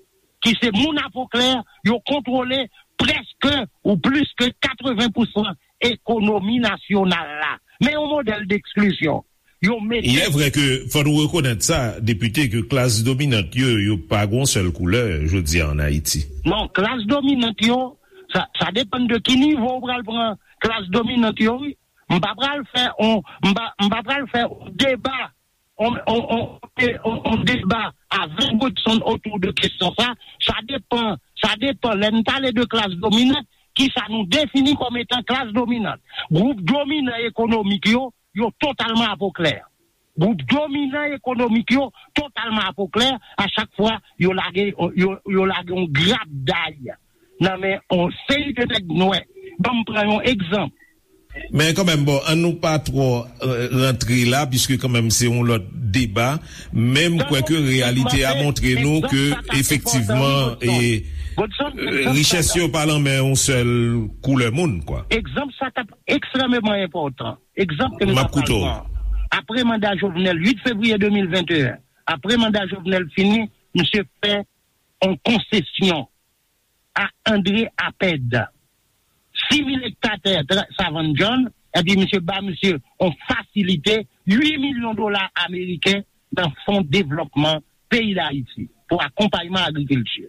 ki se moun a po klè, yo kontwole prèske ou plis ke katreven pousan ekonomi nasyonal la? Men yon modèl d'exclusion. Yo mete Il est vrai que, fò nou rekonèt sa, depite, ke klas dominant yo, yo pa gon sèl koulè, jodi a, an Ayiti. Non, klas dominant yo, sa, sa depann de ki nivo ou pral pran klas dominant yo, wi. M pa pral fè on, m pa, m pa pral fè on deba, on, on, on, on, on deba avèk Godson otou de kesyon sa. Sa depann, sa depann. Lè n pale de klas dominant, ki sa nou defini kòm etan klas dominant? Gwoup dominan ekonomik yo, yo totalman a po klè. Gwoup dominan ekonomik yo totalman a po klè. A chak fwa, yo lage, yo, yo lage yon grap day nan men yon seri de nèg nwè. Ban m pran yon egzanp. Men kanmenm, bon, an nou pa twò, euh, rantre la, piske kanmenm se yon lòt deba, men m kwè ke reyalite a montre nou ke efektivman, e, richès yo pa nan men yon sèl koulè moun, kwa. Egzanp sa t ap ekstrèmeman enpòtan. Egzanp ke m t ap pran. Apre manda Jovenel, uit fevriye de mil venteyen, apre manda Jovenel fini, misye fè yon konsesyon a André Apèd. Sis mil ekta tè Savann John, epi misye ba misye yon fasilite uit milyon dola ameriken nan fon devlòpman peyi Dayiti pou akonpayman agrikilti.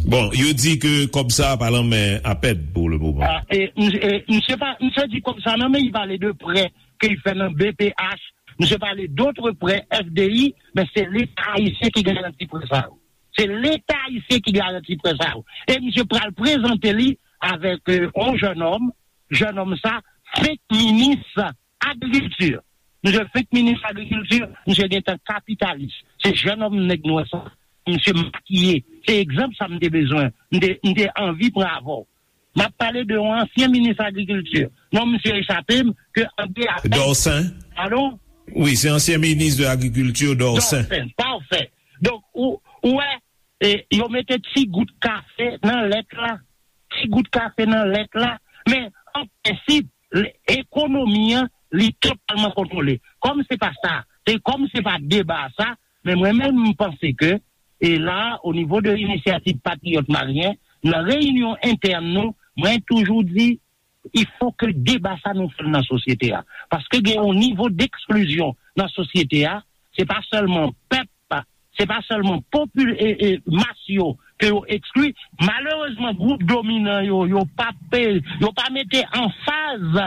Bon, yo di ke kòb sa a pa nan men Apèd pou le moman. Ah, e, misye, e, misye pa, misye di kòb sa nan men, li pale de prè ke li fè nan B P H, misye pale d'autres prêts F D I, men se Leta ayisyen ki garanti prè sa yo. Se Leta ayisyen ki garanti prè sa yo. E misye pral prezante li avèk, euh, yon jennonm, jennonm sa fenk minis agrikilti. Misye fenk minis agrikilti, misye gentan kapitalis. Se jennonm nèg nwè sa, misye makiye. Se egzanp sa m te bezwen, m te, m te anvi pran avè w. M ap pale de yon ansyen minis agrikilti. Non, misye echape m, ke André Apèd. Dorcin. Padon? Wi, se ansyen minis de agrikilti, Dorcin. Dorcin, pafè. Donk, ou, ou wè, e, yo mete ti gout kafe nan lèt la. Ti gout kafe nan lèt la. Men, an prensip, l-, ekonomi an, li totalman kontwole. Kòm se pa sa, e kòm se pa deba sa, men mwen menm, m panse ke, e la, o nivo de Inisyativ Patriyòt Malyen, nan reyinyon entèn nou, mwen toujou di, il faut que deba sa nou fè l nan sosyete a. Paske gen yon nivo d'exclusion nan sosyete a, se pa sèlman pèp, se pa sèlman popil-, e, e, mas yo ke yo ekskli. Malerezman, gwoup dominan yo, yo pa pe-, yo pa mete anfaz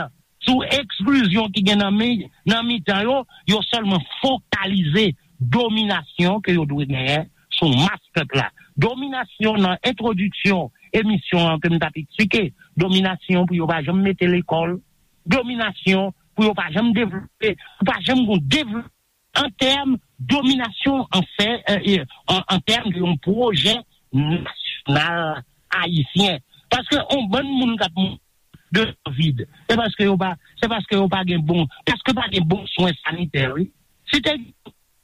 sou eksklizyon ki gen nan mi-, nan mitan yo, yo sèlman fokalize dominasyon ke yo dwe genyen sou mas pèp la. Dominasyon nan entwodiksyon emisyon an ke m t ap eksplike, dominasyon pou yo pa janm mete lekòl, dominasyon pou yo pa janm devlope, pou pa janm gon devlope an tèm dominasyon an fè, e, e, an, an tèm de yon pwojè nasyonal ayisyen. Paske yon bann moun k ap mouri de kovid, se paske yo pa, se paske yo pa gen bon, paske pa gen bon swen sanitè, wi. Si te gen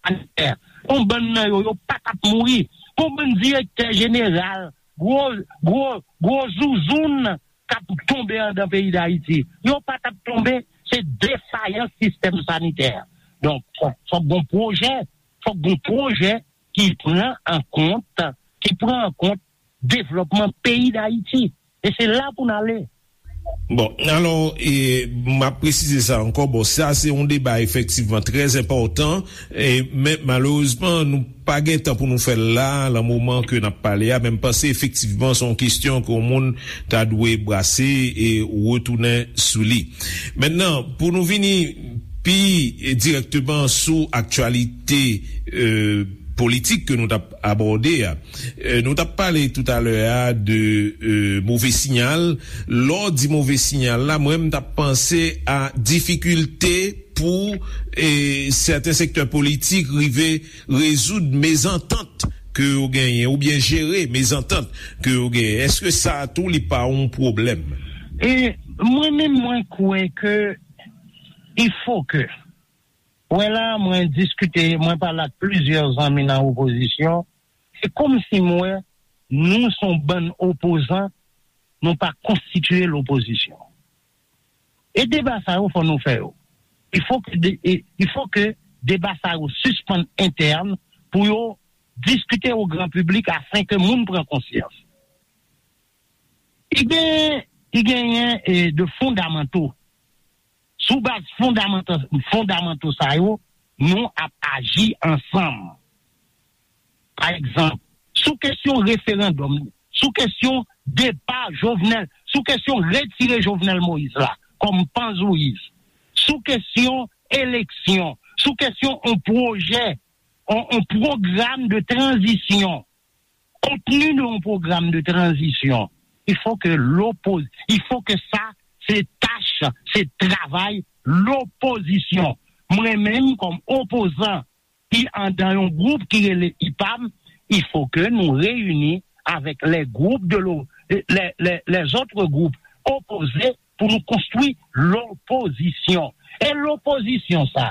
sanitè, yon bann nan yo, yo pa t ap mouri. Yon bann direktè jeneral, gwo, gwo, gwo zouzoun k ap tonbe anndan peyi Dayiti. Yo pa t ap tonbe, se defayans sistèm sanitè. Donk, fòk, fòk gon pwojè, fòk gon pwojè ki pran an kont, ki pran an kont devlòpman peyi Dayiti. E se la pou n ale. Bon, alò, e, m ap presize sa ankò. Bon, sa se yon deba efektivman trè enpòtan, e, men malerezman, nou pa gen tan pou nou fè l la, nan moman ke n ap pale a, men m panse efektivman se yon kesyon ke yon moun ta dwe brase e retounen sou li. Mentnan, pou nou vini pi direkteman sou aktyalite e, politik ke nou t ap abòde a, e, nou t ap pale toutalè a de e, move siyal. Lè w di move siyal la, mwen, m t ap panse a difikilte pou e, sèten sektè politik rive rezoud mezantant ke yo genyen, oubyen jere mezantant ke yo genyen. Èske sa tou li pa yon pwoblèm? E mwen menm, mwen kwè ke il faut que, wè la, mwen diskite, mwen pale ak plizyè zanmi nan opozisyon, se kòmsi m wè nou se yon bann opozan, nou pa konstitiye lopozisyon. E deba sa yo, fò nou fè yo. Il faut que de, e, il faut que deba sa yo sispann entèn pou yo diskite o gran piblik afin ke moun pran konsyans. I gen, i genyen e, de fondamanto. Sou baz fondamanto, fondamanto sa yo, nou ap aji ansanm. Pa egzanp, sou kesyon referandòm, sou kesyon depa Jovenel, sou kesyon retire Jovenel Moïse la kòm panzouyis, sou kesyon eleksyon, sou kesyon yon pwojè, yon, yon pwogram de tranzisyon, kontni de yon pwogram de tranzisyon, il faut que l'oppos, il faut que sa, se tach, se travay lopozisyon. Mwen menm, kòm opozan ki andan yon gwoup ki rele IPAM, il faut que nou reyini avèk les groupes de lo, les, les, les autres groupes opposés pou nou konstwi lopozisyon. E lopozisyon sa,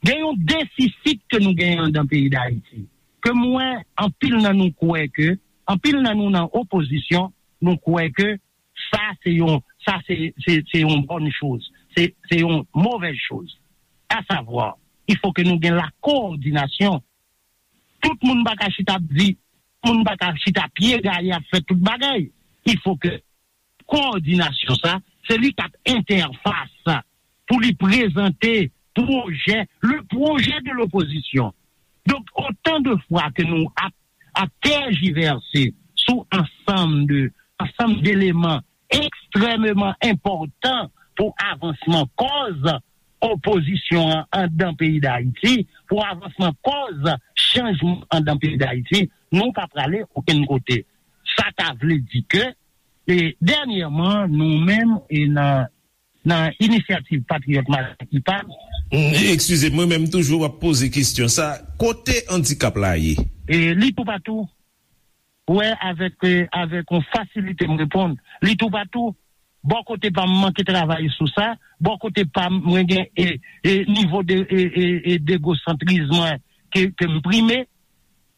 gen yon defisit ke nou genyen andan peyi Dayiti. Ke mwen, anpil nan nou kwè ke, anpil nan nou nan opozisyon, nou kwè ke sa se yon, sa se, se, se yon bòn choz, se, se yon movèz choz. A savwa, il faut que nou gen la coordination. Tout moun pa ka chita ap di, moun pa ka chita pye gaye ap fè tout bagay. Il faut que coordination sa, se li k ap entèfas pou li prezante pwojè, le projet de l'opposition. Donk, otan de fwa ke nou ap, ap tèjivèse sou ansanm de, ansanm d'eleman ekstrèmeman enpòtan pou avansman kòz opozisyon an andan peyi Dayiti, pou avansman kòz chanjman andan peyi Dayiti, nou pa prale okenn kote. Sa ta vle di ke, e, dènyèman, nou menm, e nan, nan Inisyativ Patriyòt Madanm IPAM, Eskize m, mwen menm toujou w ap poze kesyon sa, kote andikap la ye? E, li toupatou. Wè, avèk, e, avèk yon fasilite m reponn. Li toupatou. Bò kote pa m manke travay sou sa. Bò kote pa m, mwen gen, e, e, nivo de, e, e, e, degosantris mwen ke, ke m prime.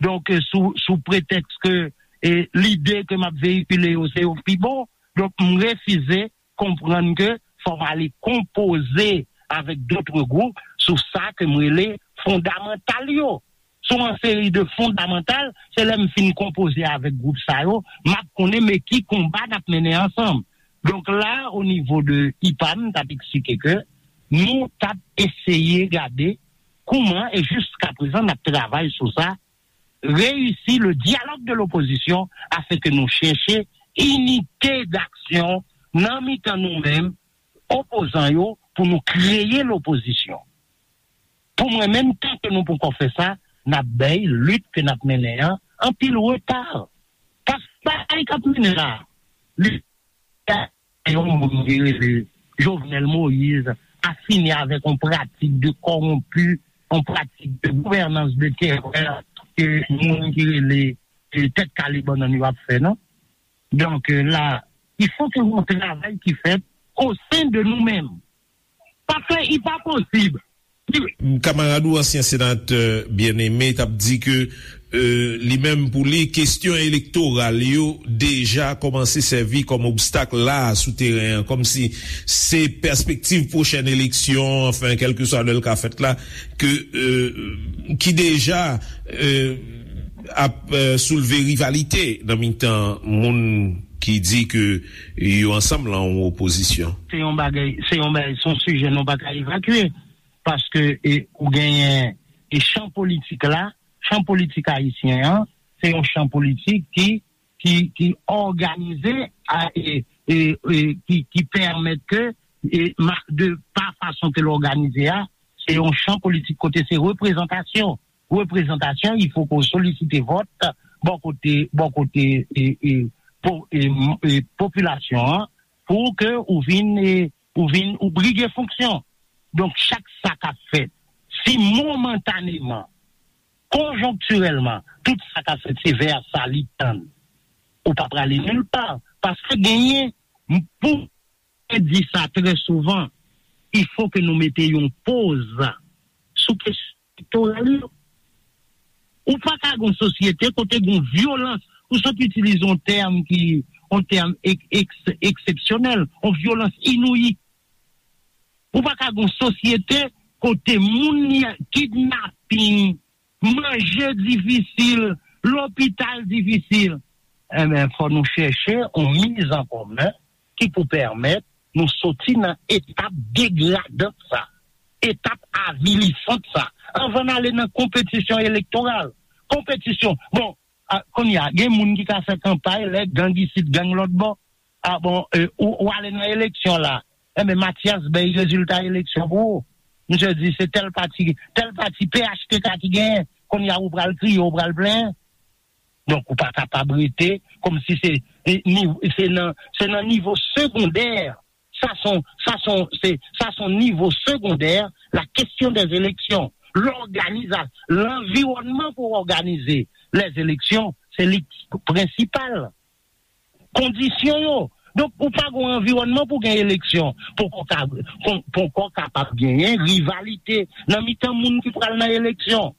Donk, e, sou, sou pretèks ke, e, lide ke m ap veyikile yo, se yo k pi bon. Donk, m refize konprann ke fò m ale konpoze avèk dòt gwoup sou sa ke m rele fondamantal yo. Sou yon seri de fondamantal, se lè m fin konpoze avèk gwoup sa yo, m ap konnen men ki konba n ap mennen ansanm. Donk la, o nivo de IPAM, m t ap eksplike ke nou t ap eseye gade kouman, e jiskaprezan, n ap travay sou sa, réussir le dialogue de l'opposition afin que nou chèche inite d'aksyon nan mitan nou menm, opozan yo, pou nou kreye lopozisyon. Pou mwen menm, tan ke nou poko fè sa, n ap bay lit ke n ap mennen an anpil reta. Paske bagay k ap mennen la, li yon moun ki rele Jovenel Moïse a fini avèk yon pratik de kòwonpi, yon pratik de gouvènans de terè ke moun ki rele, e, tèt kale bannann yo ap fè, non? Donk, e, la, il faut que yon travay ki fèt o sen de nou menm. Paske li pa posib Kamarad ou, ansyen senatè Bien-Aimé, t ap di ke, e, li menm pou li, kesyon elektoral yo deja kòmanse sèvi kòm obstak la a sou teren an, kòmsi se pèspektiv pwochèn eleksyon, anfen, kèlkeswa lè l ka fèt la, ke, e, ki deja, e, ap, e, soulve rivalite nan mitan moun ki di ke yo ansanm lan yon opozisyon. Se yon bagay, se yon bagay, se yon sijè nou pa ka evakye, paske, e, ou genyen, e, chan politik la, chan politik ayisyen an, se yon chan politik ki, ki, ki òganize a, e, e, e, ki, ki pèmèt ke, e, ma- de pa fason ke l òganize a, se yon chan politik kote se reprezantasyon. Reprezantasyon, il faut ke w solisite vòt bò kote, bò kote, e, e, po- e, m- e, popilasyon an, pou ke ou vin, e, ou vin, ou brige fonksyon. Donk, chak sa k ap fèt, si momantaneman, konjonktirèlman, tout sa k ap fèt, se vè sa li tann, ou pa prale nil pa. Paske genyen, m- pou mwen di sa trè souvan, il faut ke nou mete yon poz sou kesyon elektoral yo. Ou pa ka gen yon sosyete kote gen yon vyolans, ou sot itilize yon tèm ki, yon tèm ek- eks- eksepsyonèl, yon vyolans inouyi. Ou pa ka gen yon sosyete kote moun li kidnaping, manje difisil, lopital difisil. Enben, fò nou chèche yon miz an komen ki pou pèmèt nou soti nan etap degradant sa, etap avilisant sa, anvan n ale nan konpetisyon elektoral. Konpetisyon, bon, a, kounye a, gen moun ki ka fè kanpay lè gang isit, gang lòt bò. A bon, e, ou, ou ale nan eleksyon la. Enben, Mathias bay rezilta eleksyon pou ou. Misye di se tèl pati, tèl pati P H T K ki genyen. Kounye a, ou pral kriye, ou pral plenyen. Donk, ou pa kapab rete kòmsi se, e, ni- se nan, se nan nivo segondè. Sa son, sa son, se, sa son nivo segondè, la question des élections. Lòganiza- lanviwònman pou òganize les élections, se li ki prensipal. Kondisyon yo. Donk, ou pa gen anviwònman pou gen eleksyon. Poko ka- pon- poko kapab genyen rivalite nan mitan moun ki pral nan eleksyon.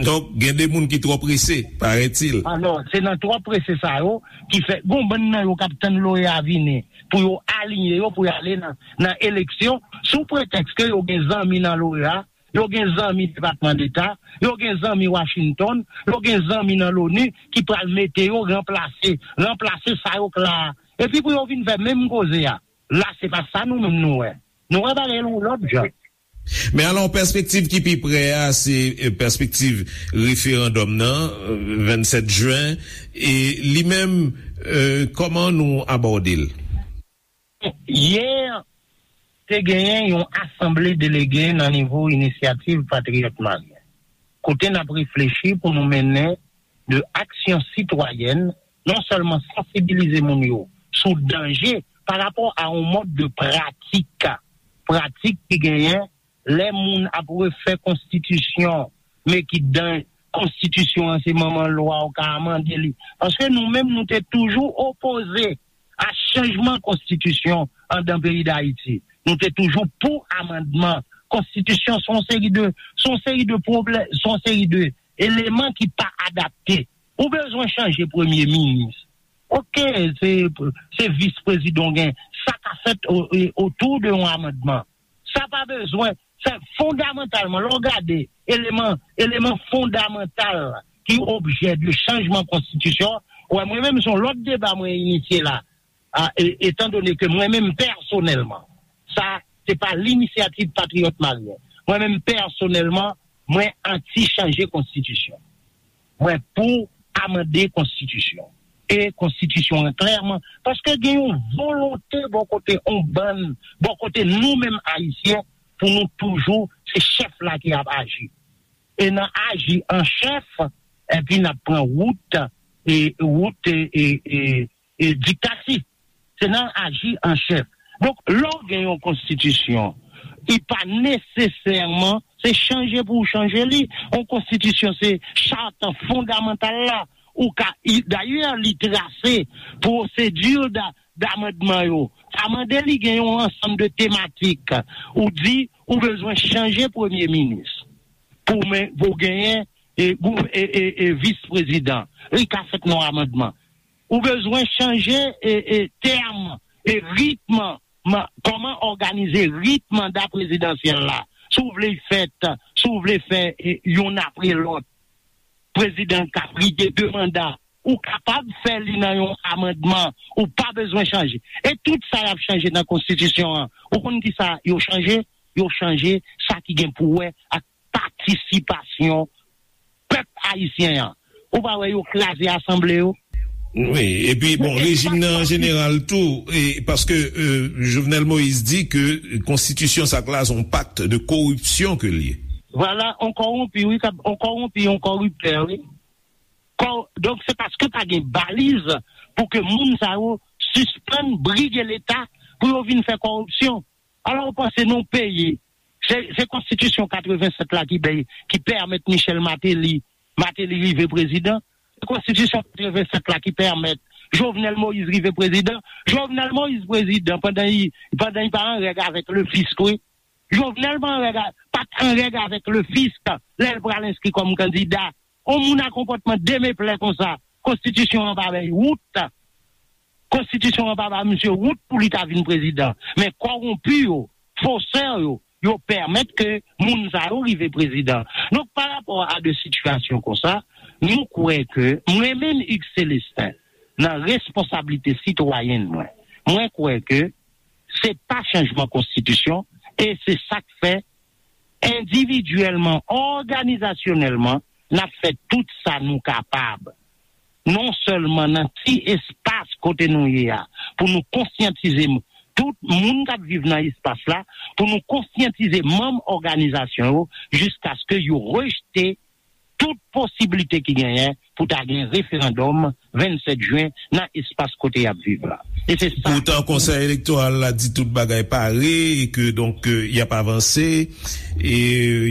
Donk, gen de moun ki twò prese, parètil. Alò, se nan twò prese sa yo ki fè, gon bann nan yo k ap tann loya vini pou yo aliyen yo, pou y ale nan, nan eleksyon, sou pretèks ke yo gen zanmi nan loya, yo gen zanmi Depatman Deta, yo gen zanmi Washington, yo gen zanmi nan loni ki pral mete yo ranplase, ranplase sa yo k la a. Epi pou yo vin fè menm koze a. La, se pa sa nou menm nou wè. Nou wè bagay yon lòt jan. Men alò, pèspektiv ki pi prè a, se, e, pèspektiv referandòm nan, e, vennsèt jen, e li menm, e, kòman nou abòde l? Yè, te genyen yon asanble delege nan nivo Inisyativ Patriyòt Maryen, kote n ap reflechi pou nou mennen de aksyon sitwayèn, non sèlman sansibilize moun yo sou danje pa rapò a yon mòd de pratik, pratik ki genyen lè moun ap refè konstitisyon, men ki dan konstitisyon an, se manman lwa, ou ka amande li. Paske nou menm, nou te toujou opoze a chanjman konstitisyon anndan peyi Dayiti. Nou te toujou pou amandman konstitisyon. Se yon seri de, se yon seri de pwoblèm, se yon seri de eleman ki pa adapte. Ou bezwen chanje premye minis. Oke, se, se vis prezidan w gen. Sa ka fèt o- e- otou de yon amandman. Sa pa bezwen, sa fondamantalman, lè w gade eleman, eleman fondamantal ki objè de chanjman konstitisyon, wè, mwen menm, se yon lòt deba mwen inisye la. A, e- etandone ke mwen menm pèsonèlman, sa, se pa Linisyativ Patriyòt Maryen. Mwen menm pèsonèlman, mwen anti chanje konstitisyon. Mwen pou amande konstitisyon. E konstitisyon an klèman, paske gen yon volonte bò kote yon bann, bò kote nou menm Ayisyen, pou nou toujou se chèf la ki ap aji. E nan aji an chèf, epi n ap pran wout, e wout, e, e, e, e diktati. Se nan aji an chèf. Donk, lè w gen yon konstitisyon, li pa nesesèman se chanje pou w chanje li. Yon konstitisyon, se chat fondamantal la. Ou ka, i- dayè, li trase pwosedi da- damandman yo. Sa mande li gen yon ansanm de tematik. Ou di, ou bezwen chanje premye minis pou men, pou genyen e, gou- e, e, e vis prezidan. Li ka fèt nan amandman. Ou bezwen chanje e, e tèm e ritm, ma- kòman òganize ritm manda prezidansyèl la. Si w vle fèt, si w vle fè e, youn apre lòt, prezidan ka brige de manda. Ou kapab fè li nan yon amandman. Ou pa bezwen chanje. E tout sa y ap chanje nan konstitisyon an, ou konn ki sa yo chanje? Yo chanje sa ki gen pou wè ak patisipasyon pèp ayisyen an. Ou pa wè yo kraze asanble yo? Wi, epi bon, rejim nan an jeneral tou, e, paske euh, Jovenel Moïse di ke konstitisyon sa k la se yon pakt de koripsyon ke l ye. Vwala, on kòwonpi, wi, kab- on kòwonpi, on kòriptè, wi. Kò- Donk, se paske pa gen baliz pou ke moun sa yo sispann brige Leta pou yo vin fè kòripsyon. Alò, ou panse nou peye? Se, se konstitisyon katrevennsèt la ki bay, ki pèmèt Michel Martelly, Martelly rive prezidan. Se konstitisyon katrevennsèt la ki pèmèt Jovenel Moïse rive prezidan. Jovenel Moïse prezidan pandan li, pandan li pa an règ avèk le fisk, wi. Jovenel pa an règ a- pa t an règ avèk le fisk lè l pral enskri kòm kandida. On moun a konpòtman demeplè konsa, konstitisyon an pa bay wout. Konstitisyon an pa ba misye wout pou li ta vin prezidan. Men kòwonpi yo, fosè yo, yo pèmèt ke moun sa yo rive prezidan. Donk, pa rapò a de sitiyasyon konsa, nou kwè ke mwen menm Hugues Célestin, nan responsablite sitwayèn mwen, mwen kwè ke se pa chanjman konstitisyon e se sa k fè endividyèlman, òganizasyonèlman, n ap fè tout sa nou kapab. Non sèlman nan ti espas kote nou ye a, pou nou konsyantize m- tout moun k ap viv nan espas la, pou nou konsyantize manm òganizasyon yo jiskaske yo rejte tout posiblite ki genyen pou ta gen referandòm vennsèt jen nan espas kote y ap viv la. E se sa. Poutan, Konsèy Elektoral la di tout bagay pare e ke, donk, euh, y ap avanse, e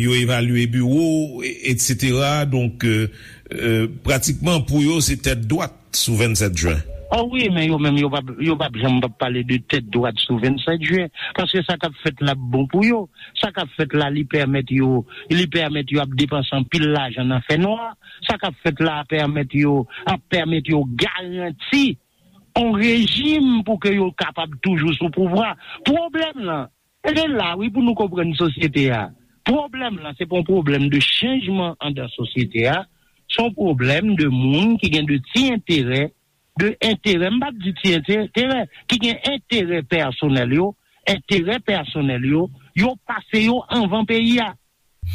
yo evalye biwo, e- etsetera. Donk, euh, euh, pratikman, pou yo, se tèt dwat sou vennsèt jen. O wi, men yo menm, yo p ap, yo p ap janm p ap pale de tèt dwat sou vennsèt jen, paske sa k ap fèt la ap bon pou yo. Sa k ap fèt la, li pèmèt yo, li pèmèt yo ap depanse anpil lajan nan fènwa. Sa k ap fèt la pèmèt yo, ap pèmèt yo garanti yon rejim pou ke yo kapab toujou sou pouvwa. Pwoblèm lan, e se la, wi, pou nou konprann sosyete a. Pwoblèm lan, se pa yon pwoblèm de chanjman anndan sosyete a. Se yon pwoblèm de moun ki gen de ti enterè, de enterè, m p ap di ti enterè, ki gen enterè pèsonèl yo, enterè pèsonèl yo, yo pase yo anvan peyi a.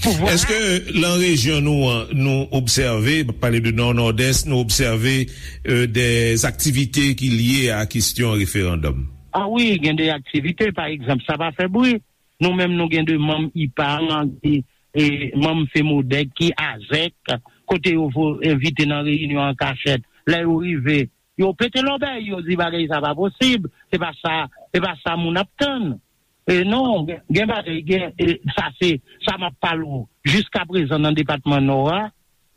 Pouvwa a. Èske lan rejyon nou an, nou obsève, m ap pale de Nò, Nòdès, nou obsève euh, de aktivite ki lye a kesyon referandòm? A wi, gen de aktivite, pa egzanp, sa pa fè bri. Nou menm, nou gen de manm IPAM ki, e, manm FEMODEK ki azèk, kote yo vo- envite nan reyinyon an kachèt. Lè yo rive, yo pete lòbèy, yo di bagay sa pa posib, se pa sa, se pa sa moun ap tann. E non, gen, gen bagay, gen, e, sa se, sa m ap pale w, jiskaprezan nan depatman Nò a,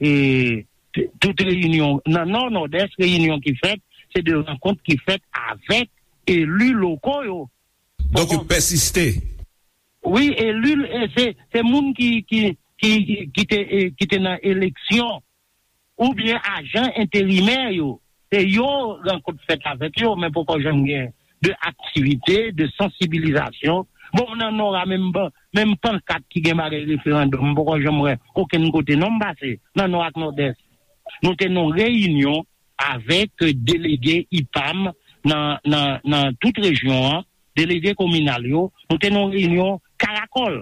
e, t- tout reyinyon, nan Nò, Nòdès, reyinyon ki fèt, se de rankont ki fèt avèk eli loko yo. Donk, yo pèsiste. Wi, eli, e se, se moun ki, ki, ki, ki te, e, ki te nan eleksyon, oubyen ajan enterimè yo. Se yo rankont fèt avèk yo, men poko janm gen de aktivite, de sansibilizasyon. Bon, nan Nò a, menm, ban- menm pankat ki gen bagay referandòm, m poko janm wè okenn kote non m pase, nan Nò ak Nòdès. Nou te nan reyinyon avèk delege IPAM nan, nan, nan tout rejyon an, delege kominal yo, nou te nan reyinyon Karakòl.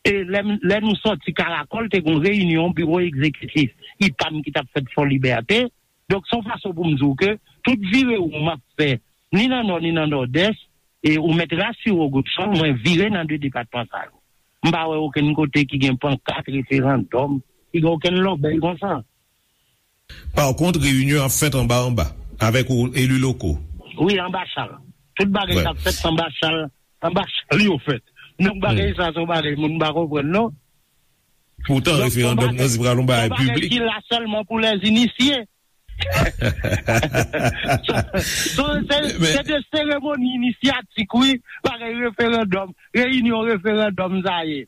E lè, lè nou sòti Karakòl, te gen yon reyinyon biwo egzekitif IPAM ki t ap fèt Fò Libète. Donk, se yon fason pou m di w ke tout vire won m ap fè, ni nan Nò, ni nan Nòdès, e ou mèt rasire w, Godson, mwen vire nan de depatman sa yo. M pa wè okenn kote ki gen pankat referandòm, ki gen okenn lòbèy konsa. Pa kont, reyinyon ap fèt anba anba, avèk ou, eli loko. Wi, anba chal. Tout bagay k ap fèt anba chal, anba chal yo fèt. Donk, bagay sa, se yon bagay moun pa konprann, non. Poutan, referandòm nan se pral yon bagay piblik. Ki la sèlman pou lèzinisye. So, so, se, se de seremoni inisyatik, wi, bagay referandòm, reyinyon referandòm sa ye.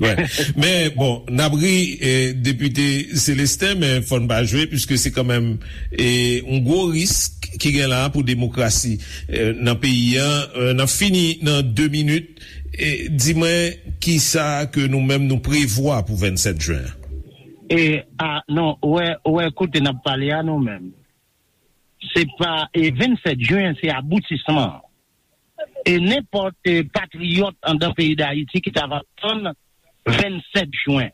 Wè. Men, bon, n ap ri, eh, Depite Célestin, men fò n pa jwe, piske se kanmenm, eh, yon gwo risk ki gen la pou demokrasi, eh, nan peyi a. Eh, n ap fini nan de minit. Eh, di mwen, kisa ke nou menm nou prevwa pou vennsèt jen an? E, a, non, ou wè, ou wè kote n ap pale a, nou menm. Se pa, e, vennsèt jen, se aboutisman an. E nenpòt, e, patriyòt anndan peyi Dayiti ki ta va tann vennsèt jen,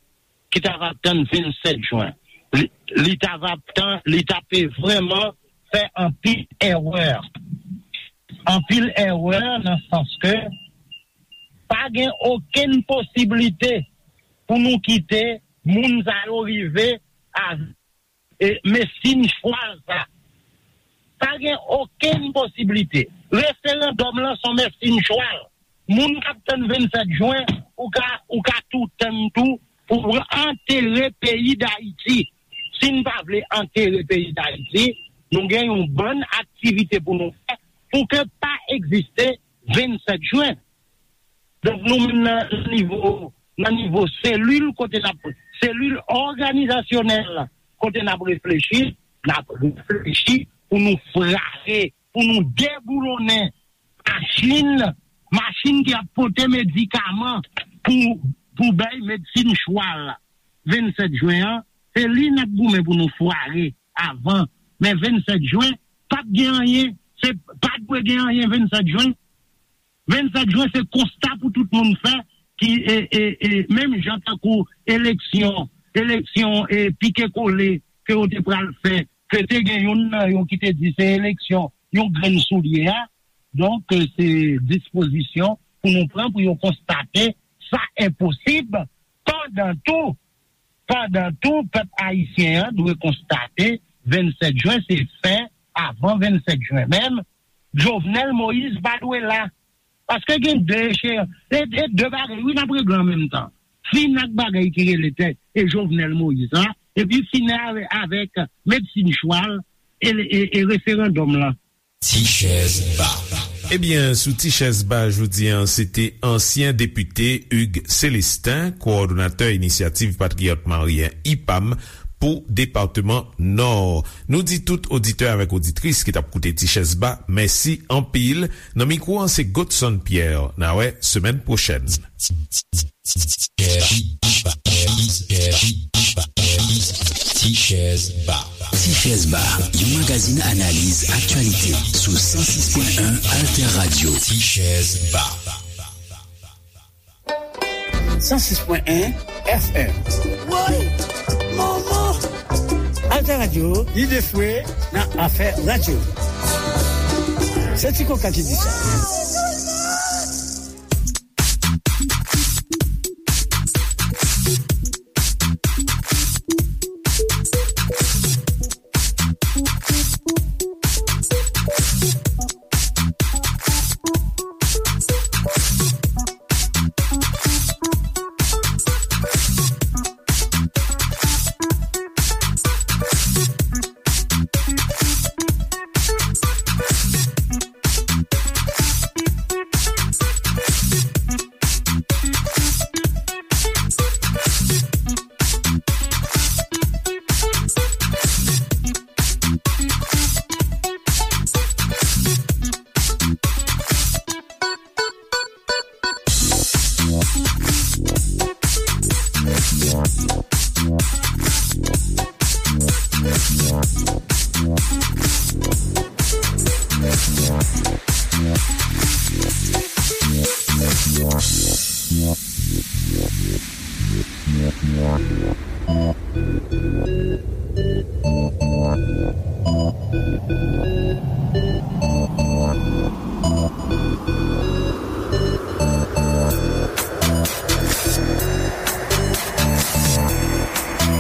ki ta va tann vennsèt jen, li, li ta va tan, li ta pe vrèman fè anpil èrè. Anpil èrè nan sans ke pa gen okenn posiblite pou nou kite moun sa yo rive a e, mesin chwal sa. Pa gen okenn posiblite. Referandòm lan se yon mesin chwal. Moun k ap tann vennsèt jen, ou ka, ou ka tou tann tou pou antere peyi Dayiti. Si n pa vle antere peyi Dayiti, nou gen yon bann aktivite pou nou fè pou ke pa egziste vennsèt jen. Donk, nou menm nan, nan nivo, nan nivo selil kote n ap, selil òganizasyonèl kote n ap reflechi, n ap reflechi pou nou frape, pou nou deboulonnen machin, machin ki ap pote medikaman pou, pou bay medsin chwal. Vennsèt jen an, se li n ap goumen pou nou frape avan. Men vennsèt jen, p ap gen anyen. Se, pa dwe gen anyen vennsèt jen. Vennsèt jen, se konsta pou tout moun fè, ki, e, e, e, menm jan tankou eleksyon, eleksyon, e, pike kole ke yo te pral fè, ke te gen youn nan yo ki te di se eleksyon yon grenn soulye a. Donk, e, se dispozisyon pou nou pran pou yo konstate sa enposib. Pandan tou, pandan tou, pèp ayisyen an dwe konstate vennsèt jen se fen avan vennsèt jen menm. Jovenel Moïse pa dwe la. Paske gen de echeyans, e, e de bagay, wi, n ap regle an menm tan. Fin ak bagay ki rele tè, e Jovenel Moïse la, epi fin avè-, avèk medsin chwal e, e, e referandòm lan. Ti chèz ba. Ebyen, sou Ti chèz ba jodi a, se te ansyen depite Hugues Célestin, kowòdonatè Inisyativ Patriyòt Maryen, ipam, pou depatman Nò. Nou di tout oditè avèk oditris ki t ap koute Ti chèz ba, mèsi anpil. Nan mikwo an, se Godson Pierre. N a wè semèn pwochèn. Ti chèz ba. Ti chèz ba, yon magazin analiz aktyalite sou san sis pwen en Alter Radio. Ti chèz ba. San sis pwen en F M. Woy! Manman! Alter Radio, ide fwe nan afè radyo. Se Ti Koka ki di sa.